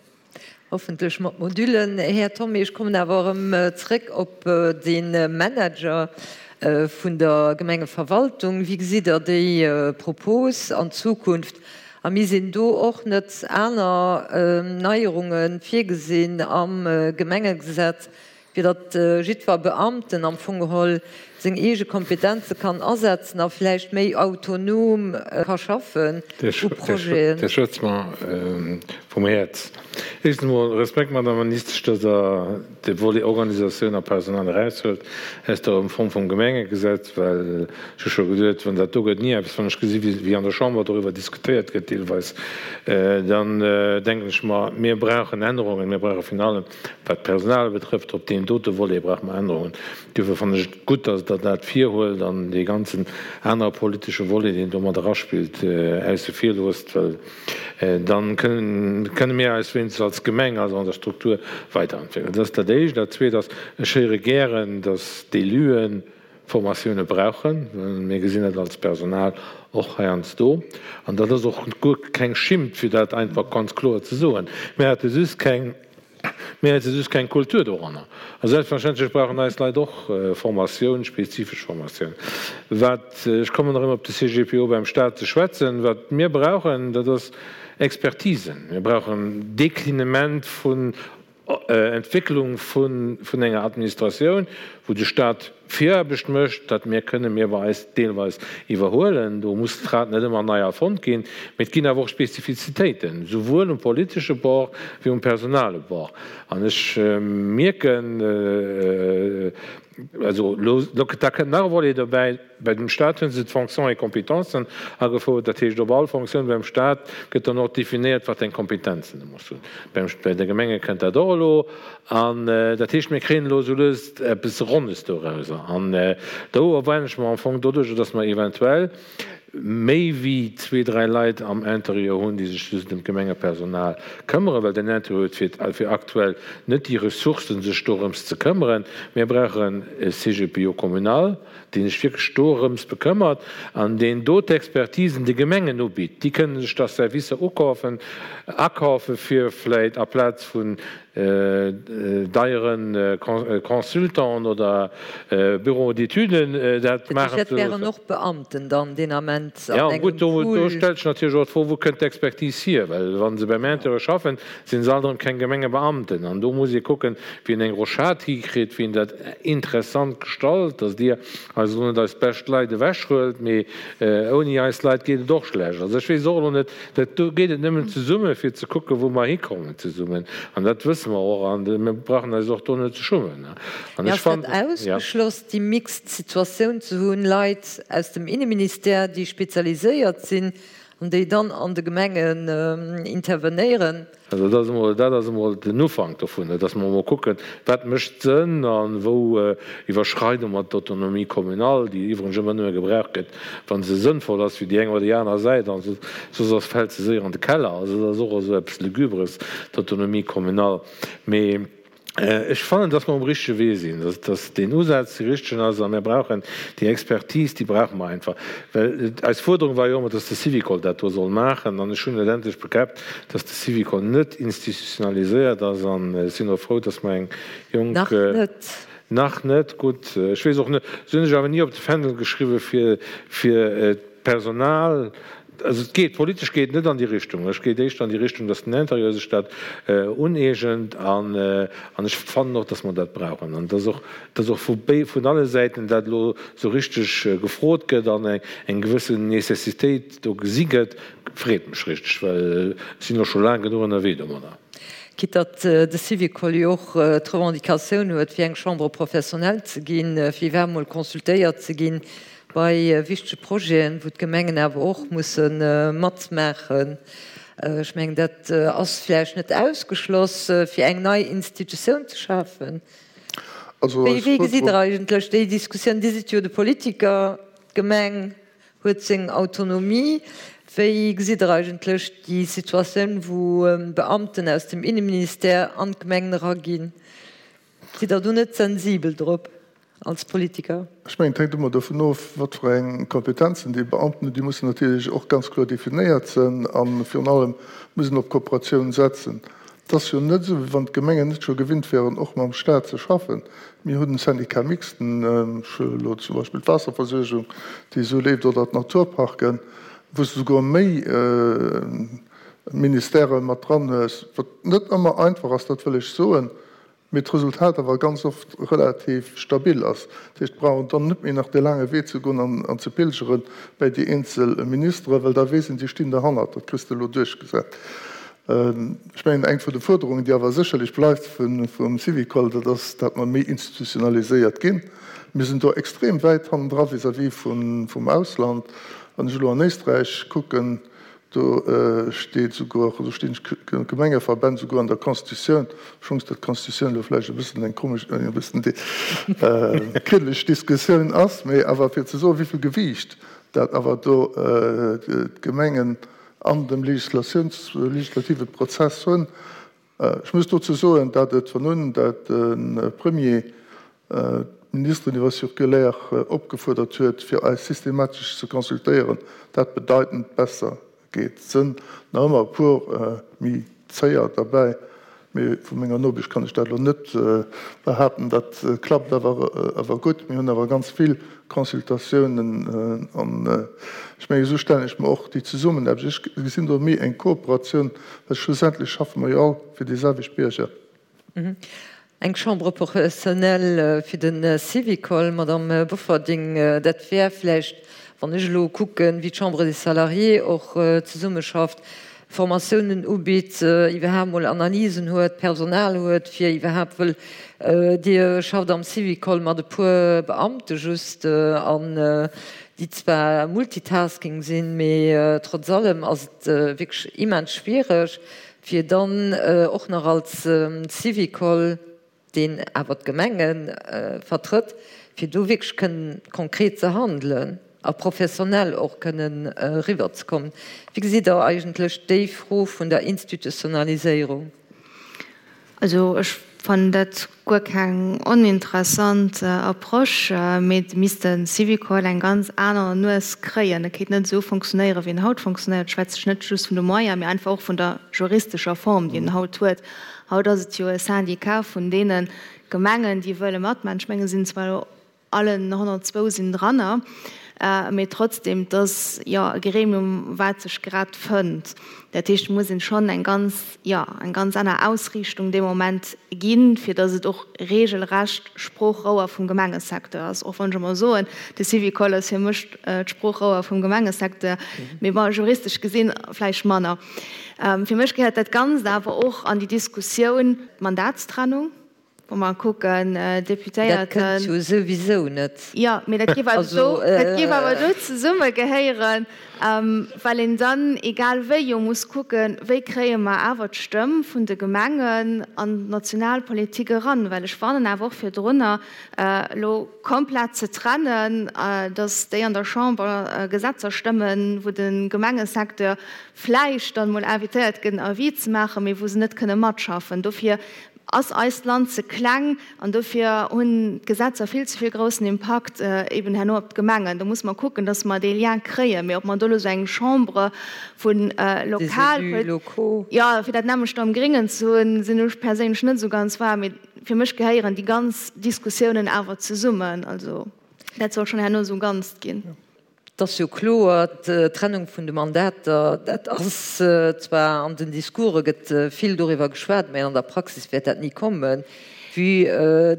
Hoffentlech mat Modüllen. Här Thomé, ech kommen awer erëm zréck op de Manager vun der Gemengeverwaltung. Wéi gesitt Der déi Propos an Zukunft? A mir sinn do och net aner Neierunge virgesinn am Gemengegesetz, fir datt jiddwer Beamten am Fong geholl seng eege Kompetenze kann asetzen a vläicht méi autonom ka schaffen u Projeten. Dir schwätzt mer vum Häerz. Éischtens emol Respekt, Madame Ministesch, datt Der de Volet Organisatioun a Personal eraushuelt aus der Reform vum Gemengegesetz, well ech hu scho geduet, wann dat do gëtt ni eppes, wann ech gesi wéi an der Chamber doriwwer diskutéiert gëtt deelweis, dann denken ech mer, mir brauchen Ännerungen, mir brauche virun allem, wat d'Personal betrëfft, op deem dote Volet brauche mer Ännerungen. Duerfir fannen ech et gutt, datt Der dat virhuelt an dee ganzen anere politesche Volet, deen do mat eraspillt, ausse vir loosst, well Dann kënne mir eis wéinstens als Gemeng, also an der Struktur, weiderentwéckelen. Dat ass dat Éischt. Dat Zweet ass, ech héiere gären, datt d'Éluen Formatioune brauchen. Mir gesinn dat als Personal och heiansdo. An dat ass och guer keng Schimmt, fir dat einfach ganz kloer ze soen. Mir hate just keng Mir hätte just keng Kultur doranner. A selbstverständlech brauchen eis Leit och Formatioun, spezifesch Formatioun. Wat, ech kommen erëm op de CGPO beim Stat ze schwätzen, wat mir brauchen, dat ass Expertisen. Mir brauchen Déclinement vun Entwécklung vun enger Administratioun, wou de Stat Viraarbecht mécht, dat mir kënne mir bei eis deelweis iwwerhuelen. Do muss d'Rad net ëmmer nei erfonnt ginn. Mee et ginn awer och Spezifizitéiten, souwuel um politesche Bord wéi um personale Bord. An ech mierken, also elo, da kënnt nach e Volet dobäi, Bei dem Stat hu se d'Fonctions et Compétences agefouert. Dat heescht, op all Fonctioun beim Stat gëtt dann och definéiert, wat eng Kompetenzen e muss hunn. Beim, bei de Gemenge kënnt dat och elo. An dat heescht, mir kréien elo esou lues eppes Ronnes dorauser. An do erwaarden ech mer am Fong doduerjer, dass mer eventuell. méi wéi zwee, dräi Leit am Interieur hunn, déi sech just ëm d'Gemengepersonal këmmeren, well den Interieur huet fir fir aktuell net déi Ressourcen, sech dorëms ze këmmeren. Mir brauchen e CGPO communal, dee sech wierklech dorëms bekëmmert an deen do d'Expertisen de Gemengen ubitt. Déi kënnen sech da Servicer ukafen, akafen, fir vläit aplaz vun deiere Consultanten oder Bureaux d'études dat maachen ze loossen. Dat wären och Beamten dann deen Ament an engem Pool. Jo, gutt, do stellt sech natierlech och d'Fro, Wou kënnt d'Expertise hier? Well wa se beim Interieur schaffen, si se alt erëm keng Gemengebeamten. An do muss ee kucken, wéi een eng Rochade hikritt, wéi een dat interessant gestalt, dass Dir eis elo net eis bescht Leit ewechhuelt, mee ouni eis Leit geet et och schlecht. Also ech weess och elo net, Dat do geet et nëmmen zesumme fir ze kucken, wou mer hikommen zesummen. An dat wësse mer och. An mir brauchen eis och do net ze schummen. An ech fannen. Ass dat ausgeschloss, déi mixed Situatioun ze hunn, Leit aus dem Inneministère, déi spezialiséiert sinn an déi dann an de Gemengen intervenéieren? Also dat ass emol, dat ass emol den Ufank dovun, dass mer emol kucken, wat mécht Sënn a wou iwwerschreide mer d'Autonomie communale, déi iwwregens ëmmer nëmme gebraucht gëtt, wa se sënnvoll ass fir déi eng oder déi aner Säit, an soss ass, fält se séier an de Keller. Also dat ass och esou eppes Lugubres, d'Autonomie communale. Mee Ech fannen, dass mer um richtege Wee sinn, dass deen Usaz dee richtegen ass a mir brauchen déi Expertise, déi brauche mer einfach. Well eis Fuerderung war jo ëmmer, dass de Syvicol dat do soll maachen an ech hunn et endlech bekäppt, dass de Syvicol net institutionaliséiert ass an ech sinn och frou, dass mer eng jonk. Nach net. Nach net, gutt. Ech weess och net, se hunn sech awer ni op de Fändel geschriwwen, fir, fir d'Personal Also et geet, politesch geet et net an déi Richtung. Ech geet éischter an déi Richtung, datt den Intérieur sech dat uneegent an an ech fannen och, datt mer dat brauchen an datt och, datt och vu béi, vun alle Säiten dat elo esou richteg gefrot gëtt an eng eng gewëssen Nécessitéit do gesi gëtt, freet mech richteg, well ech sinn elo scho laang genuch ënnerwee domadder. Quitte datt de Syvicol jo och d'Revendicatioun huet, fir eng Chambre professionnelle ze ginn, fir iwwerhaapt mol consultéiert ze ginn Bei wichtege Projeten, wou d'Gemengen awer och musse matmaachen. Ech mengen, dat ass vläicht net ausgeschloss, fir eng nei Institutioun ze schafen. Wéi gesitt Der eigentlech déi Diskussioun? Dir sidd jo de Politiker, d'Gemeng huet seng Autonomie. Wéi gesitt Der eigentlech déi Situatioun, wou Beamten aus dem Inneministère an d'Gemengen eraginn? Sidd Der do net sensibel drop als Politiker? Ech mengen, et hänkt ëmmer dovun of, wat fir eng Kompetenzen déi Beamten hunn. Déi mussen natierlech och ganz kloer definéiert sinn a virun allem muss een op Kooperatioun setzen. Et ass jo net esou, wéi wann d'Gemengen net scho gewinnt wären, och mam Stat ze schaffen. Mir hunn Syndicat mixte, ech huelen elo zum Beispill d'Waasserversuergung, déi esou leeft, oder d'Naturparken, wou s de souguer méi Ministèrë mat dran hues, wat net ëmmer einfach ass, dat wëll ech soen. Mee d'Resultat awer ganz oft relativ stabil ass. Dat heescht, et brauch een dann net méi nach dee laange Wee ze goen an ze pilgere bäi déi eenzel Ministere, well da weess een, déi stinn derhannert, dat kriss de elo duerchgesat. Ech mengen, eng vun de Fuerderungen, déi awer sécherlech bleift vum Syvicol, dat ass, dat mer méi institutionaliséiert ginn. Mir sinn do extrem wäit hannendra vis-à-vis vum Ausland. Wann ech elo an Éisträich kucken, Do steet souguer, do stinn d'Gemengeverbänn souguer an der Constitutioun, obschonns dat d'Constitutioun elo vläicht e bëssen eng komesch, e bëssen kriddeleg Diskussioun ass, mee awer fir ze soen, wéi vill Gewiicht dat awer do d'Gemengen an dem Legislatiouns-, legislative Prozess hunn. Ech muss dozou soen, dat et von un, dat de Premier d'Ministeren iwwer Circulaire opgefuerdert huet, fir eis systematesch ze consultéieren, dat bedeitend besser geet. Et sënn nach ëmmer e puer méi zéier derbäi, mee vu menger Nobicht kann ech dat elo net behaapten. Dat klappt awer awer gutt. Mir hunn awer ganz vill Consultatiounen an ech mengen, esou stellen ech mer och déi Zesummenaarbecht. Ech gesinn do méi eng Kooperatioun, well schlussendlech schaffe mer jo all fir déi selwecht Bierger. Eng Chambre professionnelle fir de Syvicol, Madame Bofferding, dat wär vläicht, wann ech elo kucken, wéi d'Chambre des Salariés och zesummeschafft, Formatiounen ubitt, iwwerhaapt mol Analysen huet, Personal huet, fir iwwerhaapt, wëll Dir schafft am Syvicol mat e puer Beamte just, an déi zwar Multitasking sinn, mee trotz allem ass et wierklech immens schwiereg, fir dann och nach als Syvicol, deen awer d'Gemenge vertrëtt, fir do wierklech kënnen konkret ze handelen. A professionell och kënnen eriwwerzekommen. Wéi gesitt Der eigentlech déi Fro vun der Institutionaliséierung? Also ech fannen dat guer keng oninteressant Approche, mee et misst de Syvicol eng ganz aner Nues kréien. E kéint net esou fonctionnéieren, wéi en haut fonctionnéiert. Ech schwätze net just vun de Moyens, mee einfach och vun der juristescher Form, déi en haut huet. Haut ass et jo e Syndicat vun deene Gemengen, déi wëlle matmaachen. Ech mengen, et sinn zwar elo Allen 102 sinn dranner, mee trotzdem, et ass jo e Gremium, wat sech grad fënnt. Dat heescht, et muss een schonn eng ganz, jo, eng ganz aner Ausriichtung dee Moment ginn, fir datt et och regelrecht Sproochrouer vum Gemengesecteur ass. Och wann ech emol soen, de Syvicol ass fir mech d'Sproochrouer vum Gemengesecteur, mee bon, juristesch gesinn vläicht manner. Fir mech gehéiert dat Ganzt awer och an déi Diskussioun Mandatstrennung. Wa mer kucken, Deputéierten. Dat kënnt jo souwisou net. Jo, mee dat géif awer do, dat géif awer do zesummegehéieren, well een dann egal wéi jo muss kucken, wéi kréie mer awer d'Stëmm vun de Gemengen an d'Nationalpolitik eran. Well ech warnen awer och virdrunner, elo komplett ze trennen, datt déi an der Chamber Gesetzer stëmmen, wou de Gemengesecteur vläicht dann emol invitéiert gëtt, en Avis ze maachen, mee wou se net kënne matschaffen. Dofir ass eist Land ze kleng an dofir hunn d'Gesetzer vill ze vill groussen Impakt eben herno op d'Gemengen. Do musse mer kucken, dass mer dee Lien kréien. Mee ob mer do elo esou eng Chambre vu lokal, jo, fir dat nämmlecht am Gringen ze hunn, sinn ech perséinlech net esou ganz waarm. Mee fir mech gehéieren déi ganz Diskussiounen awer zesummen. Also dat soll schonn herno esou e Ganzt ginn. Et ass jo kloer, d'Trennung vun de Mandater, dat ass zwar an den Discourse gëtt vill doriwwer geschwat, mä an der Praxis wäert dat ni kommen, vue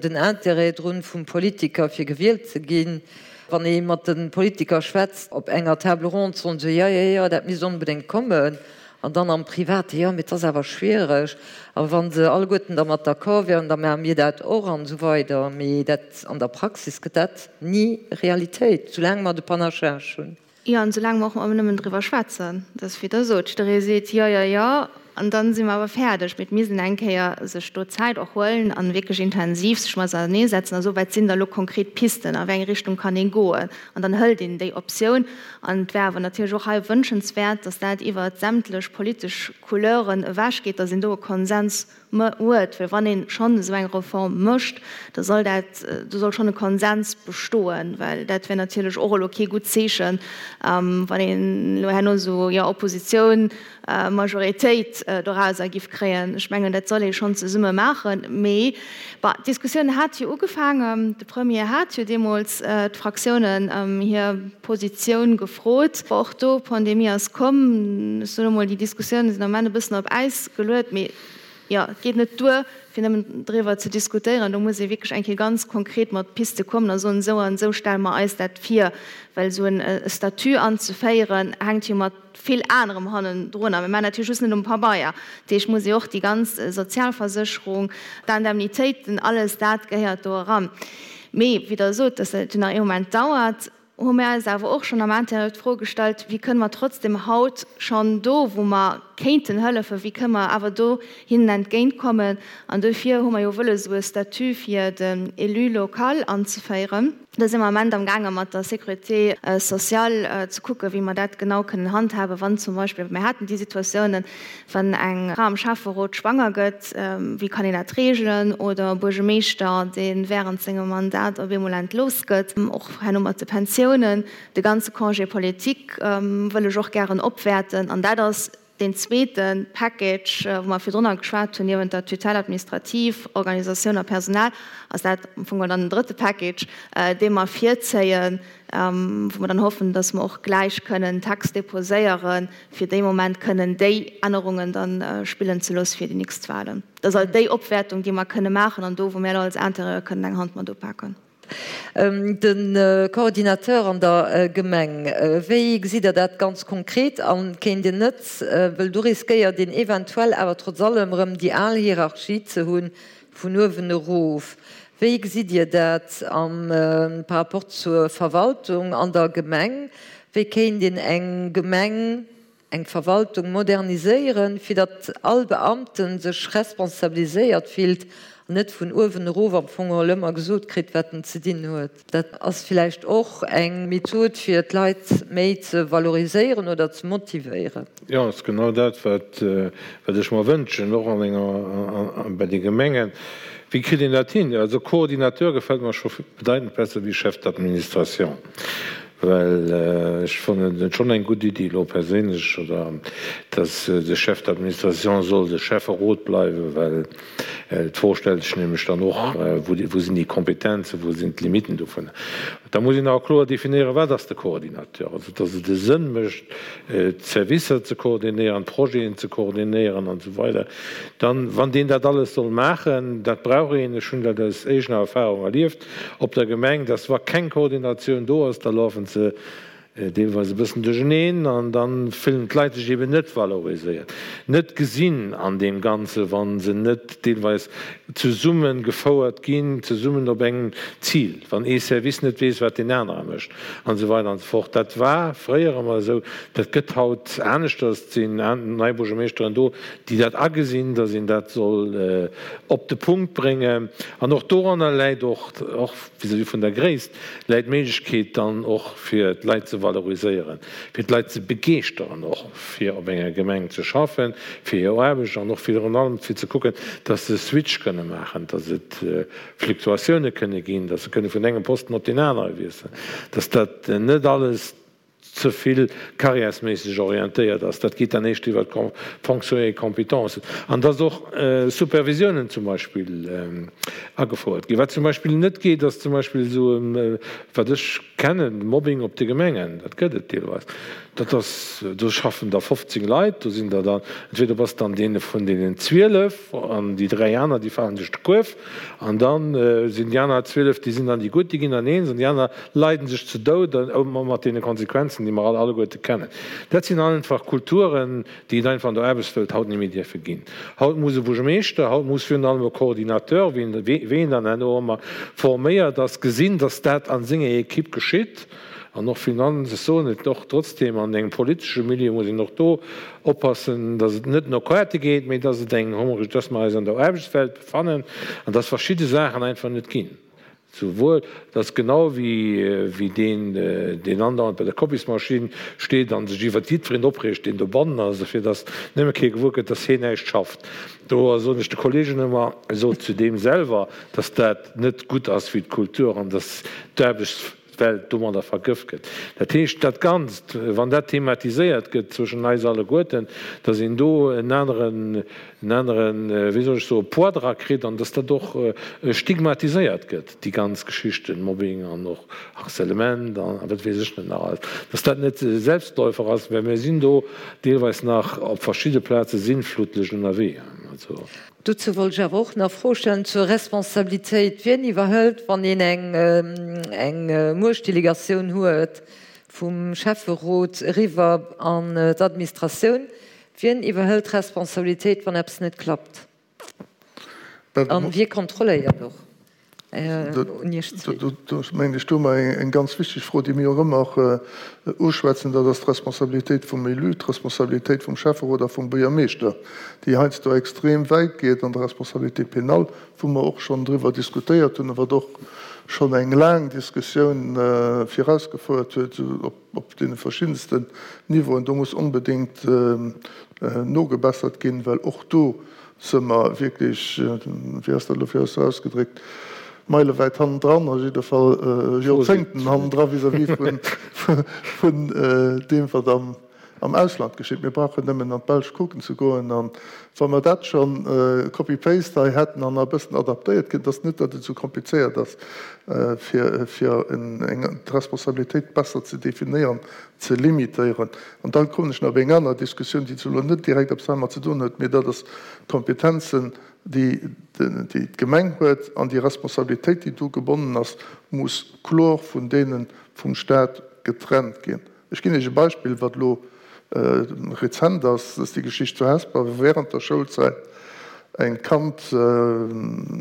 den Intérêt drun vum Politiker fir gewielt ze ginn. Wann ee mat de Politiker schwätzt op enger Table ronde, soen se, jo, jo, jo, dat misst onbedéngt kommen. An dann am Private, jo, mee et ass awer schwiereg. A wa se alleguerten dermat d'accord wieren, da maache mir dat och an esou weider. Mee dat, an der Praxis gëtt dat ni Realitéit, soulaang mer de Panachage hunn. Jo, an soulaang mer och ëmmer nëmmen driwwer schwätzen. Dat ass, wéi Der sot, jidderee seet, jo, jo, jo, an dann si mer awer fäerdeg. Mee et misst een eng Kéier sech do Zäit och huelen a wierklech intensiv sech mat auserneesetzen a soen, wat sinn da lo konkret Pisten, a wéi eng Richtung kann ee goen. An dann hëlt een déi Optioun. An et wär awer natierlech och hei wënschenswäert, dass dat iwwer sämtlech politesch Couleuren ewechgeet, dass een do e Konsens huet. Well wann ee schonn esou eng Reform mécht, da soll dat, do soll schonn e Konsens bestoen, well dat wär natierlech och elo kee gutt Zeechen, wann een elo herno esou, jo, Oppositioun, Majoritéit dorauser giff kréien. Ech mengen, dat soll ee schonn zesumme maachen. Mee bon, d'Diskussioun hat jo ugefaangen. De Premier hat jo deemools d'Fraktiounen ëm hir Positioun gefrot. Bon, och do, d'Pandemie ass komm. Ech soen emol, déi Diskussiounen sinn am Ament e bëssen op Äis geluet. Mee jo, et geet net duer, fir nëmmen driwwer ze diskutéieren. Do muss ee wierklech eng Kéier ganz konkret mat Piste kommen a soen, esou an esou stelle mer eis dat vir. Well esou e Statut anzeféieren, hänkt jo mat vill anerem hannendrun. A mir maachen dat jo just net um Pabeier. Dat heescht, muss ee och déi ganz Sozialversécherung, d'Indemnitéiten, alles dat gehéiert do eran. Mee wéi Der sot, dass dat jo nach ee Moment dauert, hu mir eis awer och schonn am Intérieur d'Fro gestallt, Wéi kënne mer trotzdem haut schonn do, wou mer kéinten hëllefen, wéi kënne mer awer do hinnen entgéintkommen? An dofir hu mer jo wëlles, esou e Statut fir den Élu local anzeféieren. Do si mer am Ament am gaange mat der Sécurité sociale ze kucken, wéi mer dat genau kënnen handhaben, wann zum Beispill, mir haten déi Situatiounen, wann eng Fra am Schäfferot schwanger gëtt, wéi kann een dat reegelen, oder e Buergemeeschter, dee während sengem Mandat op eemol entlooss gëtt, och herno mat de Pensiounen. De ganze Congé politique wëll ech och gären opwäerten an dat ass Deen zweete Package, wou mer virdrunner geschwat hunn, niewent der Tutelle administrative, Organisatioun a Personal, ass dat am Fong dann den drëtte Package, dee mer virzéien, wou mer dann hoffen, dass mer och gläich kënnen Text déposéieren, fir dee Moment kënnen déi Ännerungen da spillen ze loosse fir déi nächst Wahlen. Dat ass alt déi Opwäertung, déi mer kënne maachen an do, wou mir elo als Intérieur kënnen eng Hand mat upaken. De Coordinateur an der Gemeng, wéi gesitt Der dat ganz konkret an? Kéint een net, wëll do riskéiert een eventuell awer trotz allem erëm déi al Hierarchie ze hunn, vun uewen erof, wéi gesitt Dir dat am par rapport zur Verwaltung an der Gemeng? Wéi kéint een eng Gemeng. Eng Verwaltung moderniséieren, fir datt all Beamte sech responsabiliséiert fillt an net vun uewen erof am Fong geholl ëmmer gesot kritt, wat en ze dinn huet. Dat ass villäicht och eng Method, fir d'Leit méi ze valoriséieren oder ze motivéieren. Jo, ass genau dat, wat ech mer wënschen, och an enger, bei de Gemengen. Wéi kritt een dat hin? Also Coordinateur gefält mer scho bedeitend besser wéi Chef d'administration. Well ech fannen et schonn eng gutt Iddi elo perséinlech, oder dass de Chef d'administration soll de Schäfferot bleiwen, well d'Fro stellt sech nämlech dann och, wou sinn déi Kompetenzen, wou sinn d'Limiten dovun. Da muss een awer kloer definéieren, wat ass de Coordinateur, also dass et e Sënn mécht, d'Servicer ze koordinéieren, d'Projeten ze koordinéieren an esou weider. Dann, wann deen dat alles soll maachen, dat brauch een, ech hunn dat aus eegener Erfahrung erlieft, op der Gemeng, dass wa keng Koordinatioun do ass, da lafen se deelweis e bëssen duercheneen an da fillen d'Leit sech eben net valoriséiert, net gesinn an deem Ganze wa se net deelweis zesumme gefouert ginn, zesummen op engem Zil, wann ee Service net weess, wat deen anere mécht an esou weider an esou fort. Dat war fréier ëmmer esou, dat gëtt haut aneschters. Et sinn nei Buergermeeschteren do, déi dat agesinn, dass een dat soll op de Punkt bréngen. An och doranner läit och, och vis-à-vis vun der Gréisst, läit d'Méiglechkeet dann och fir d'Leit ze valoriséieren, fir d'Leit ze begeeschteren och fir op enger Gemeng ze schaffen, fir hir Aarbecht an och virun allem fir ze kucken, dass se Switch kënne maachen, dass et Fluktuatioune kënne ginn, dass se kënne vun engem Posten op deen anere wiesselen, dass dat net alles ze vill carrièresméisseg orientéiert ass, dat geet dann éischt iwwer d'Fonctions et compétences, an dass och Supervisiounen zum Beispill agefouert ginn. Wat zum Beispill net geet, ass zum Beispill esou, wat ech kennen, Mobbing op de Gemengen, dat gëtt et deelweis, dat ass, do schaffen der 15 Leit, do sinn der dann, entweder bass de an deene vun deenen 12 an déi dräi aner, déi falen duerch de Kuerf, an da sinn déi aner 12, déi sinn dann déi gutt, déi ginn dann eens, an déi aner leiden sech ze Doud, mat deene Konsequenzen, déi mer all alleguerte kennen. Dat sinn einfach Kulturen, déi et einfach an der Aarbechtswelt haut net méi dierfe ginn. Haut muss e Buergermeeschter, haut muss virun allem e Coordinateur, wéi en dann herno ëmmer forméiert ass, gesinn, dass dat a senger Equipe geschitt. An och Finanz, ech soen et och trotzdem, an engem politesche Milieu muss een och do oppassen, dass et net no Quote geet, mee dass et eng, dass mer eis an der Aarbechtswelt befannen an dass verschidde Saachen einfach net ginn. Souwuel, dass genau wéi deen, deen andauernd bei der Kopiesmaschinn steet a sech iwwert jiddwereen opreegt, deen dobannen ass, fir dass nëmme kee gewuer gëtt, dass hien näischt schafft. Do soen ech de Kollegen ëmmer, sot zu deem selwer, dass dat net gutt ass fir d'Kultur an dass d'Aarbechtswelt domadder vergëft gëtt. Dat heescht, dat Ganzt, wann dat thematiséiert gëtt zwëschen eis alleguerten, dass een do en aneren en aneren, wéi soll ech soen, Poids dra kritt an dass dat och stigmatiséiert gëtt, déi ganz Geschichten, Mobbing an och Harcèlement a wat weess ech net nach alles, dass dat net e Selbstläufer ass, well mir sinn do deelweis nach op verschidde Plaze sinnflutlech ënnerwee. Also. Dozou wollt ech awer och nach Froe stellen zur Responsabilitéit. Wien iwwerhëlt, wann een eng Muechtdelegatioun huet vum Schäfferot eriwwer an d'Administratioun, Wien iwwerhëlt d'Responsabilitéit, wann eppes net klappt? An wie kontrolléiert och? Un Iech zwee. Do mengen ech, do hu mer eng ganz wichteg Fro, déi mir och ëmmer uschwätzen, dat ass d'Responsabilitéit vum Élu, d'Responsabilitéit vum Schäfferot a vum Buergermeeschter, déi heiansdo extrem wäit geet an der Responsabilité pénale, wou mer och schonn driwwer diskutéiert hunn a wat och schonn eng laang Diskussioun virausgefouert huet, op Op deene verschiddensten Niveauen, do muss onbedéngt nogebessert ginn, well och do si mer wierklech, wéi ass dat elo fir eis ausgedréckt, meilewäit hannendran, a jidde Fall Joerzéngten hannendra vis-à-vis vun deem, wat am Ausland geschitt. Mir brauchen nëmmen an d'Belsch kucken ze goen. A wa mer dat scho copy-paste hei hätten an e bëssen adaptéiert kritt, et ass net, datt et esou komplizéiert ass, fir d'Responsabilitéit besser ze definéieren, ze limitéieren. An da kommen ech nach op eng aner Diskussioun, déi zwar elo net direkt eppes heimat ze doen huet, mee dat ass d'Kompetenzen, déi d'Gemeng huet, an déi Responsabilitéit, déi do gebonnen ass, muss kloer vun deene vum Stat getrennt ginn. Ech ginn Iech e Beispill, wat elo rezent ass, dat ass déi Geschicht zu Hesper, wou während der Schoulzäit eng Kand vun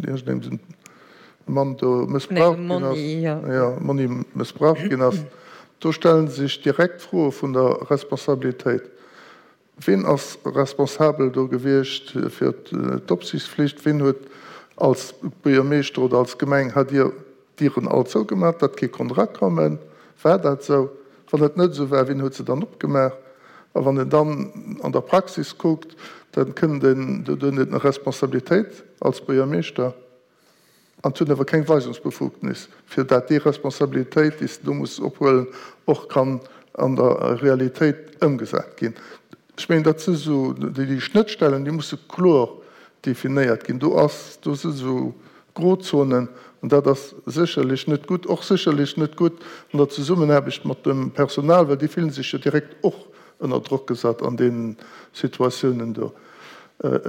iergendengem Mann do mëssbraucht ginn ass, jo, Monni mëssbraucht ginn ass. Do stelle sech direkt d'Froe vun der Responsabilitéit. Ween ass responsabel do gewiescht fir d'Opsiichtsflicht? Ween huet als Buergermeeschter oder als Gemeng, hat Dir d'Dieren all zougemaach, datt kee konnt erakommen? War dat esou? Wann et net esou war, wien huet se dann opgemaach? A wann een dann an der Praxis kuckt, da kënnt een, do huet een eng Responsabilitéit als Buergermeeschter an huet awer keng Weisungsbefugnis, fir dat déi Responsabilitéit, déi s de do muss ophuelen, och kann an der Realitéit ëmgesat ginn. Ech mengen, dat si sou déi Schnëttstellen, déi musse kloer definéiert ginn. Do ass, do si sou Grozonen an dat ass sécherlech net gutt. Och sécherlech net gutt an der Zesummenaarbecht mat dem Personal, well déi fillen sech jo direkt och ënner Drock gesat an deenen Situatiounen do.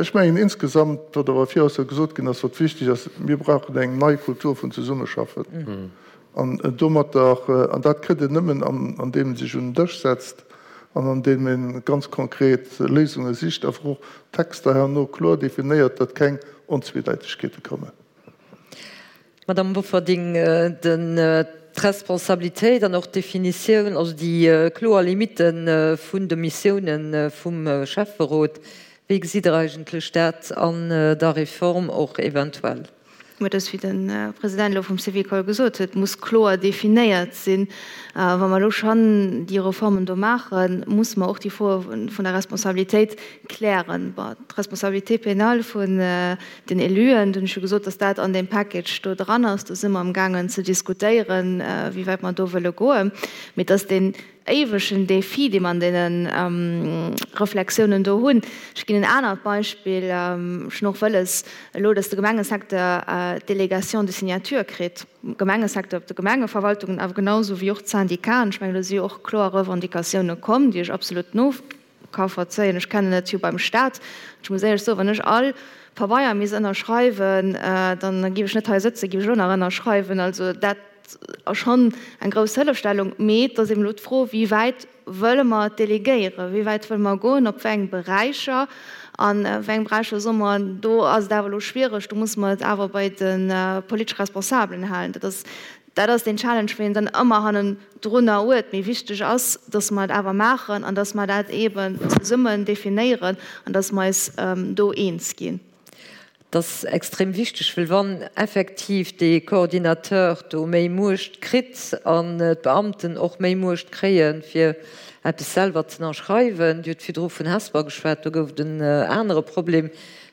Ech mengen insgesamt, wat awer viraus jo gesot ginn ass, wat wichteg ass, mir brauchen eng nei Kultur vun Zesummeschaffen an domatter, an dat kritt een nëmmen andeem ee sech un den Dësch setzt an andeem ee ganz konkret Léisunge sicht, awer och Texter herno kloer definéiert, datt keng Onzweedeitegkeete kommen. Madame Bofferding, d'Responsabilitéit an och d'Definitioun, also déi kloer Limitte vun de Missiounen vum Schäfferot, wéi gesitt Der eigentlech dat an der Reform och eventuell? Mä et ass, wéi de President elo vum Syvicol gesot huet, muss kloer definéiert sinn. Wa mer elo schonn déi Reformen do maachen, muss mer och déi Froe vun der Responsabilitéit klären. Bon, d'Responsabilité pénale vun den Éluen, do hunn ech jo gesot, dass dat an deem Package do dran ass. Do si mer amgaangen ze diskutéieren, wéi wäit mer do wëlle goen. Mee et ass deen éiwegen Défi, dee mer an deene Reflexiounen do hunn. Ech ginn en anert Beispill. Ech hunn och wëlles elo, dass de Gemengesecteur d'Délégation de signature kritt. Gemengesecteur op de Gemengeverwaltungen, awer genau esou wéi och d'Syndicaten. Ech mengen, do si jo och kloer Revendicatiounen komm, déi ech absolut no. Ka verzéien. Ech kennen et jo beim Staat. Ech muss éierlech soen, wann ech all Pabeier misst ënnerschreiwen, dann géif ech net hei sëtzen, géif ech elo nach ënnerschreiwen. Also dat ass schonn eng grouss Hëllefstellung. Mee et ass eben elo d'Fro, wéi wäit wëlle mer delegéieren, wéi wäit wëlle mer goen, op wéi eng Beräicher an wéi eng Beräicher soe mer, do ass et awer elo schwiereg, do musse mer et awer bei de politesch Responsabelen halen. Dat ass Dat ass deen Challenge, wou een dann ëmmer hannendrunner huet. Mee wichteg ass, dass mer et awer maachen an dass mer dat eeben zesummen definéieren an dass mer eis do eens ginn. Dat ass extrem wichteg, well wann effektiv dee Coordinateur do méi Muecht kritt an d'Beamten och méi Muecht kréien, fir eppes selwer ze ënnerschreiwen, Dir hutt virdru vun Hesper geschwat, do gouf et en anere Problem,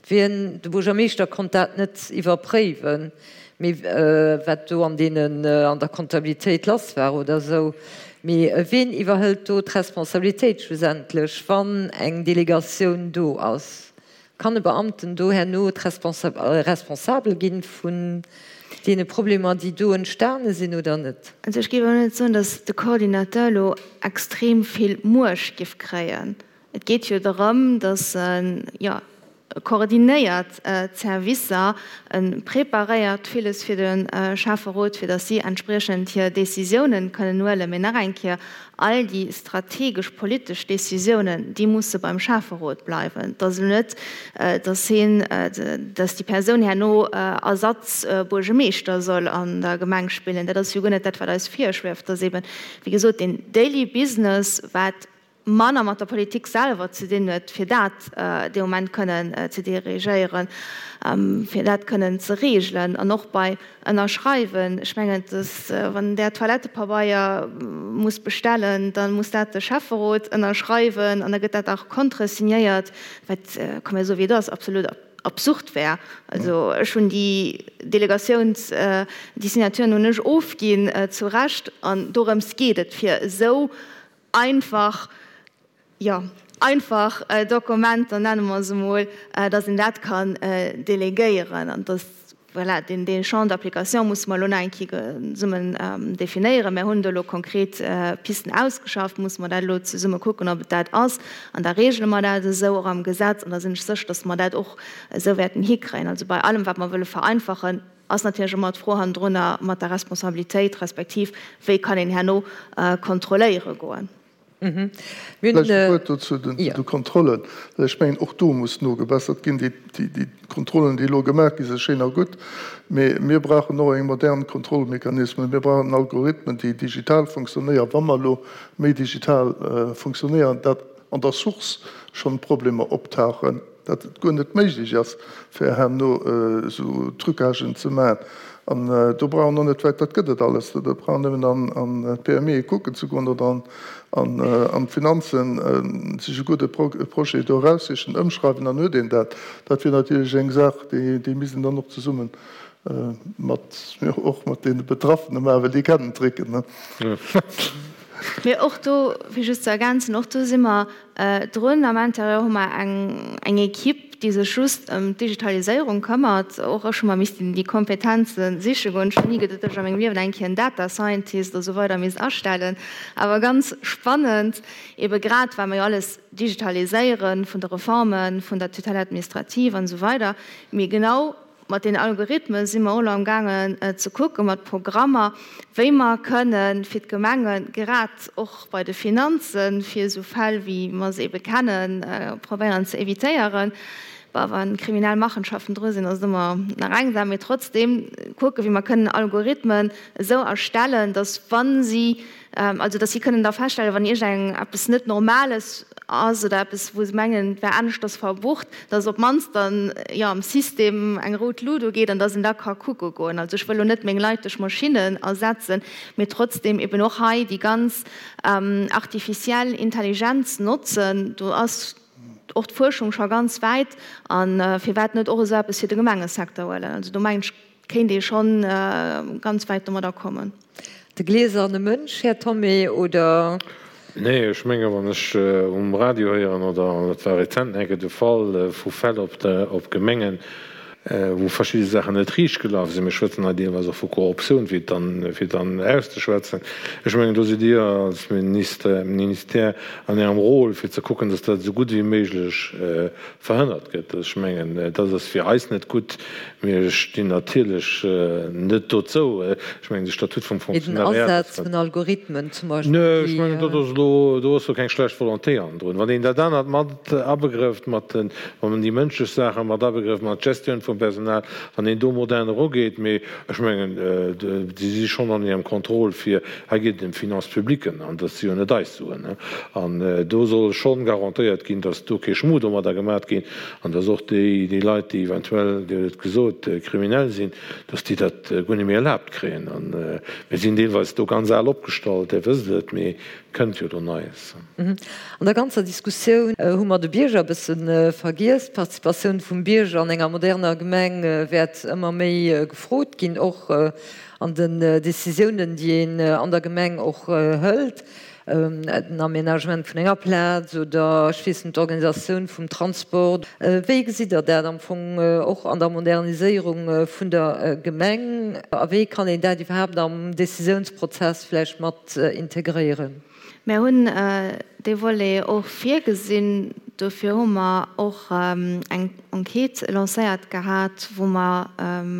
wien, de Buergermeeschter konnt dat net iwwerpréiwen. Mee wat do an deenen, an der Comptabilitéit lass war oder esou. Mee ween iwwerhëlt do d'Responsabilitéit schlussendlech, wann eng Delegatioun do ass? Kann e Beamten do herno responsabel ginn vun deene Problemer, déi do entstane sinn oder net? Also ech géif elo net soen, datt de Coordinateur elo extrem vill Muecht géif kréien. Et geet jo dorëm, datt en, jo, e koordinéiert d'Servicer, e preparéiert villes fir de Schäfferot, fir datt si entspriechend hir Décisiounen kënnen huelen. Mee nach eng Kéier, all déi strategesch politesch Décisiounen, déi musse beim Schäfferot bleiwen. Et ass elo net, datt hien, datt déi Persoun herno Ersatzbuergemeeschter soll an der Gemeng spillen. Dat ass jo guer net dat, wat eis virschwieft. Et ass eben, wéi gesot, deen Daily Business, wat manner mat der Politik selwer ze dinn huet, fir dat dee Moment kënnen ze dirigéieren, fir dat kënnen ze regelen. An och bei Ënnerschreiwen, ech mengen, dass, wann Der Toilettepabeier musst bestellen, da muss dat de Schäfferot ënnerschreiwen an da gëtt dat auch contresignéiert, wat, komm mir soe wéi et ass, absolut absurd wär. Also ech hunn déi Delegatiouns, déi Signaturen hunn ech ofginn, zu Recht, an dorëms geet et, fir esou einfach, jo, einfach Dokumenter, nenne mer se emol, dass een dat kann delegéieren an dass, voilà, deen, dee Champ d'application musse mer elo nach eng Kéier zesummen definéieren. Mir hunn do elo konkret Pisten ausgeschafft, musse mer dat elo zesumme kucken, ob et dat ass. An da regele mer dat esou och am Gesetz an da sinn ech sécher, dass mer dat och esou wäerten hikréien. Also bei allem, wat mer wëlle vereinfachen, Ass natierlech ëmmer d'Fro hannendrunner mat der Responsabilitéit, respektiv wéi kann een herno kontrolléiere goen. Vläicht e Wuert do zu de Kontrollen, well ech mengen, och do muss nogebessert ginn. Déi Kontrollen, déi elo gemaach gi si schéin a gutt, mee mir brauchen och eng modern Kontrollmechanismen. Mir brauchen Algorithmen, déi digital funktionéieren, wa mer elo méi digital funktionéieren, dat an der Source schonn Problemer optauchen. dat et guer net méiglech ass, fir herno esou Trucagen ze maachen. An do brauch een och net wäit, dat gëtt et alles, do brauch een nëmmen an d'PMEe kucken ze goen oder an d'Finanzen, sech e gudde Projet do eraussichen, ëmschreiwen, dann huet een dat. Dat wier natierlech eng Saach, déi misst een dann och zesumme mat, jo, och mat deene Betraffene maachen, well déi kennen d'Tricken. Mee och do, fir just ze ergänzen, och do si mer drun. Am Intérieur hu mer eng eng Equipe, déi sech just ëm d'Digitaliséierung këmmert. Och ech hu mer missten déi Kompetenze siche goen. Ech hunn ni geduet, datt ech a mengem Liewen eng Kéier en Data Scientist a sou weider misst astellen. Awer ganz spannend, ebe grad well mer jo alles digitaliséieren, vun de Reforme vun der Tutelle administrative an esou weider. Mee genau Mat den Algorithme si mer och elo am gaangen ze kucken, mat Programmer, wéi mer kënne fir d'Gemenge grad och bei de Finanzen, fir esou Fäll wéi mer se ebe kennen, probéieren ze évitéieren. Bon, wa kriminell Machenschaften dru sinn, ass et ëmmer nach eng Saach, mee trotzdeem kucken, wéi mer kënnen Algorithmen esou erstellen, datt wa si Also, dass si kënnen da feststellen, wann iergend eppes net Normales ass oder eppes, wou se mengen, et wär aneschters verbucht, dass op d'mannst dann, jo, am System eng rout Lut ugeet an dass een da ka kucke goen. Also, ech wëll elo net meng Leit duerch Maschinnen ersetzen, mee trotzdem eben och hei déi ganz artificiell Intelligenz notzen. Do ass och d'Fuerschung scho ganz wäit. A firwat net och esou eppes fir de Gemengesecteur huelen? Also, do mengen ech, Kéint ee schonn ganz wäit domadder kommen. De gläserne Mënsch, Här Thomé, oder? Nee, ech menge wann ech um Radio héieren, oder et war rezent enke de Fall vu Fäll op Gemengen, wou verschidde Saachen net riicht gelaf sinn, mir schwätzen hei deelweis och vu Korruptioun, fir et dann, fir et dann auszeschwätzen, ech mengen do sidd Dir als Minister, Ministère an Ärem Rôle fir ze kucken, datt dat esou gutt wéi méiglech verhënnert gëtt. Ech mengen dat ass fir eis net gutt. Mir stinn natierlech net dozou. Ech mengen, de Statut vum Fonctionnariat. Mee den Asaz vun Algorithmen zum Beispill, déi. Nee, ech mengen, dat ass elo, do ass jo keng schlecht Volonté hannendrun. Wann een dat anert mat abegrëfft, mat den, wann een déi mënschlech Saache mat abegrëfft, mat d'Gestioun vum Personal, wann een do modern erugeet. Mee ech mengen, si si schonn an hirem Contrôle fir, hei geet et ëm d'Finances publiques an dat si jo net eis Suen. An do soll schonn garantéiert ginn, datt do kee Schmu domadder gemat ginn. An dass och déi, déi Leit, déi eventuell, Dir hutt et gesot, kriminell sinn, dass déi dat guer net méi erlaabt kréien. A mir sinn deelweis do ganz al opgestallt, Dir wësst et, mee kënnt jo do Neies. An der ganzer Diskussioun hu mer de Bierger e bësse vergiess. D'Participatioun vum Bierger an enger moderner Gemeng wäert ëmmer méi gefrot ginn, och an den Décisiounen, déi een an der Gemeng och hëlt. den Aménagement vun enger Plaz oder ech weess net, d'Organisatioun vum Transport. Wéi gesitt Der dat am Fong och an der Moderniséierung vun der Gemeng a wéi kann een dat iwwerhaapt am Décisiounsprozess vläicht mat integréieren? Mir hunn dee Volet och virgesinn. Dofir hu mer och eng Enquête lancéiert gehat, wou mer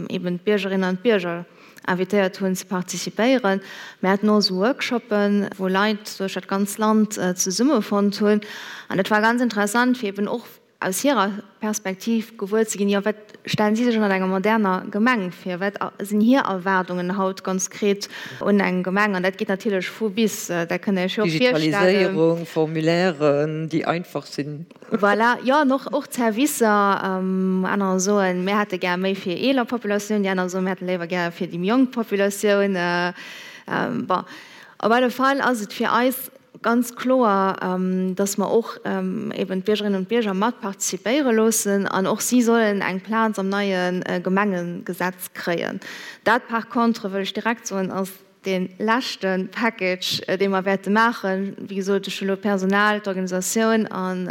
eben d'Biergerinnen an d'Bierger invitéiert hunn ze participéieren. Mir haten och esou Workshoppen, wou Leit duerch dat ganz Land zesummefonnt hunn. An dat war ganz interessant, fir eben och aus hirer Perspektiv gewuer ze ginn, jo, wat stellen si sech ënnert enger moderner Gemeng vir, wat sinn hir Erwaardungen haut ganz konkret un eng Gemeng. An dat geet natierlech vu bis, dat kënnt Der Iech jo och virstellen. Digitaliséierung, Formulairen, déi einfach sinn. Voilà, jo, an och, och d'Servicer. Anerer soen, mir hätte gär méi fir eeler Populatioun, déi aner soen, mir hätte léiwer gär fir déi méi jonk Populatioun. Bon, op alle Fall ass et fir eis ganz kloer, dass mer och eben d'Biergerinnen und Bierger mat participéiere loossen an och si sollen eng Plaz am neie Gemengegesetz kréien. Dat par contre, wëll ech direkt soen, ass Dee leschte Package, dee mer wäerte maachen, wéi gesot, ech hu elo d'Personal, d'Organisatioun an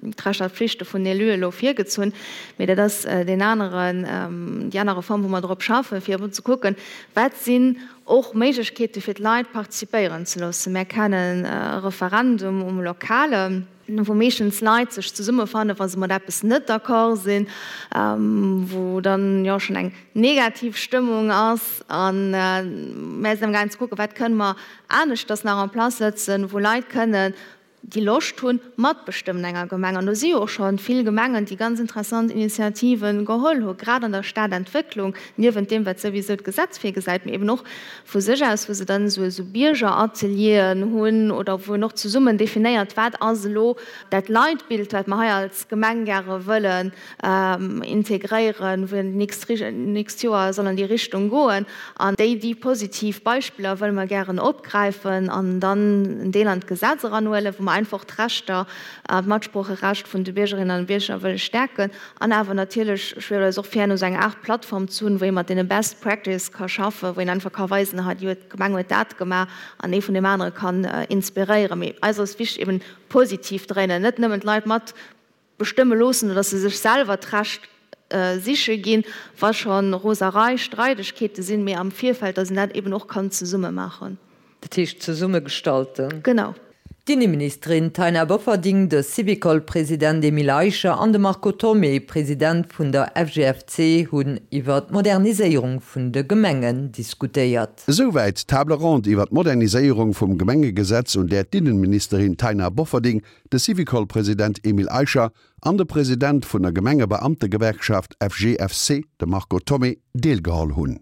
d'Rechter a d'Flichte vun den Éluen elo virgezunn, mee dat ass deen aneren, déi aner Reform, wou mer drop schaffen, fir eben ze kucken, wat sinn och Méiglechkeete fir d'Leit participéieren ze loossen. Mär kennen e Referendum um Lokale. Wou meeschtens Leit sech zesummefannen, wa se mat eppes net d'accord sinn, wou dann jo schonn eng negativ Stëmmung ass. A mär sinn amgaangen ze kucken, wat kënne mer aneschters nach en place sëtzen, wou Leit kënne. déi Loscht hunn, matbestëmmen enger Gemeng. An do si jo och scho vill Gemengen, déi ganz interessant Initiative geholl hu grad an der Stadentwécklung, niewent deem, wat souwisou d'Gesetz virgesäit, mee eben och vu sech aus, wou se dann esou Biergeratelieren hunn oder wou een och zesummen definéiert, wat ass elo dat Leitbild, wat mer hei als Gemeng gäre wëllen integréieren, wou een d'nächst Joer soll an déi Richtung goen. An déi déi positiv Beispiller wëlle mer gären opgräifen an dann en Deel an d'Gesetz eranhuelen, wou mer einfach d'Rechter, d'Matsproocherecht vun de Biergerinnen an Bierger wëlle stäerken. An awer natierlech schwieft eis och vir, herno esou eng Aart Plattform ze hunn, wou ee mat deene Best Practice ka schaffen, wou een einfach ka weisen, hei déi huet, d'Gemeng huet dat gemaach an ee vun deem anere kann inspiréieren. Mee eis ass wichteg, eben positiv dréinen, net nëmmen d'Leit mat bestëmme loossen oder dass se sech selwer d'Recht siche ginn, wa scho Roserei, Streidegkeete sinn, mee am Virfeld, dass een dat eben och kann zesumme maachen. Dat heescht zesumme gestalten. Genau. D'Inneministerin Taina Bofferding, de Syvicol-President Emile Eicher an de Marco Thomé, President vun der FGFC, hunn iwwer d'Moderniséierung vun de Gemengen diskutéiert. Esouwäit d'Table ronde iwwer d'Moderniséierung vum Gemengegesetz, un där d'Innenministerin Taina Bofferding, de Syvicol-President Emile Eicher an de President vun der Gemengebeamtegewerkschaft FGFC, de Marco Thomé, deelgeholl hunn.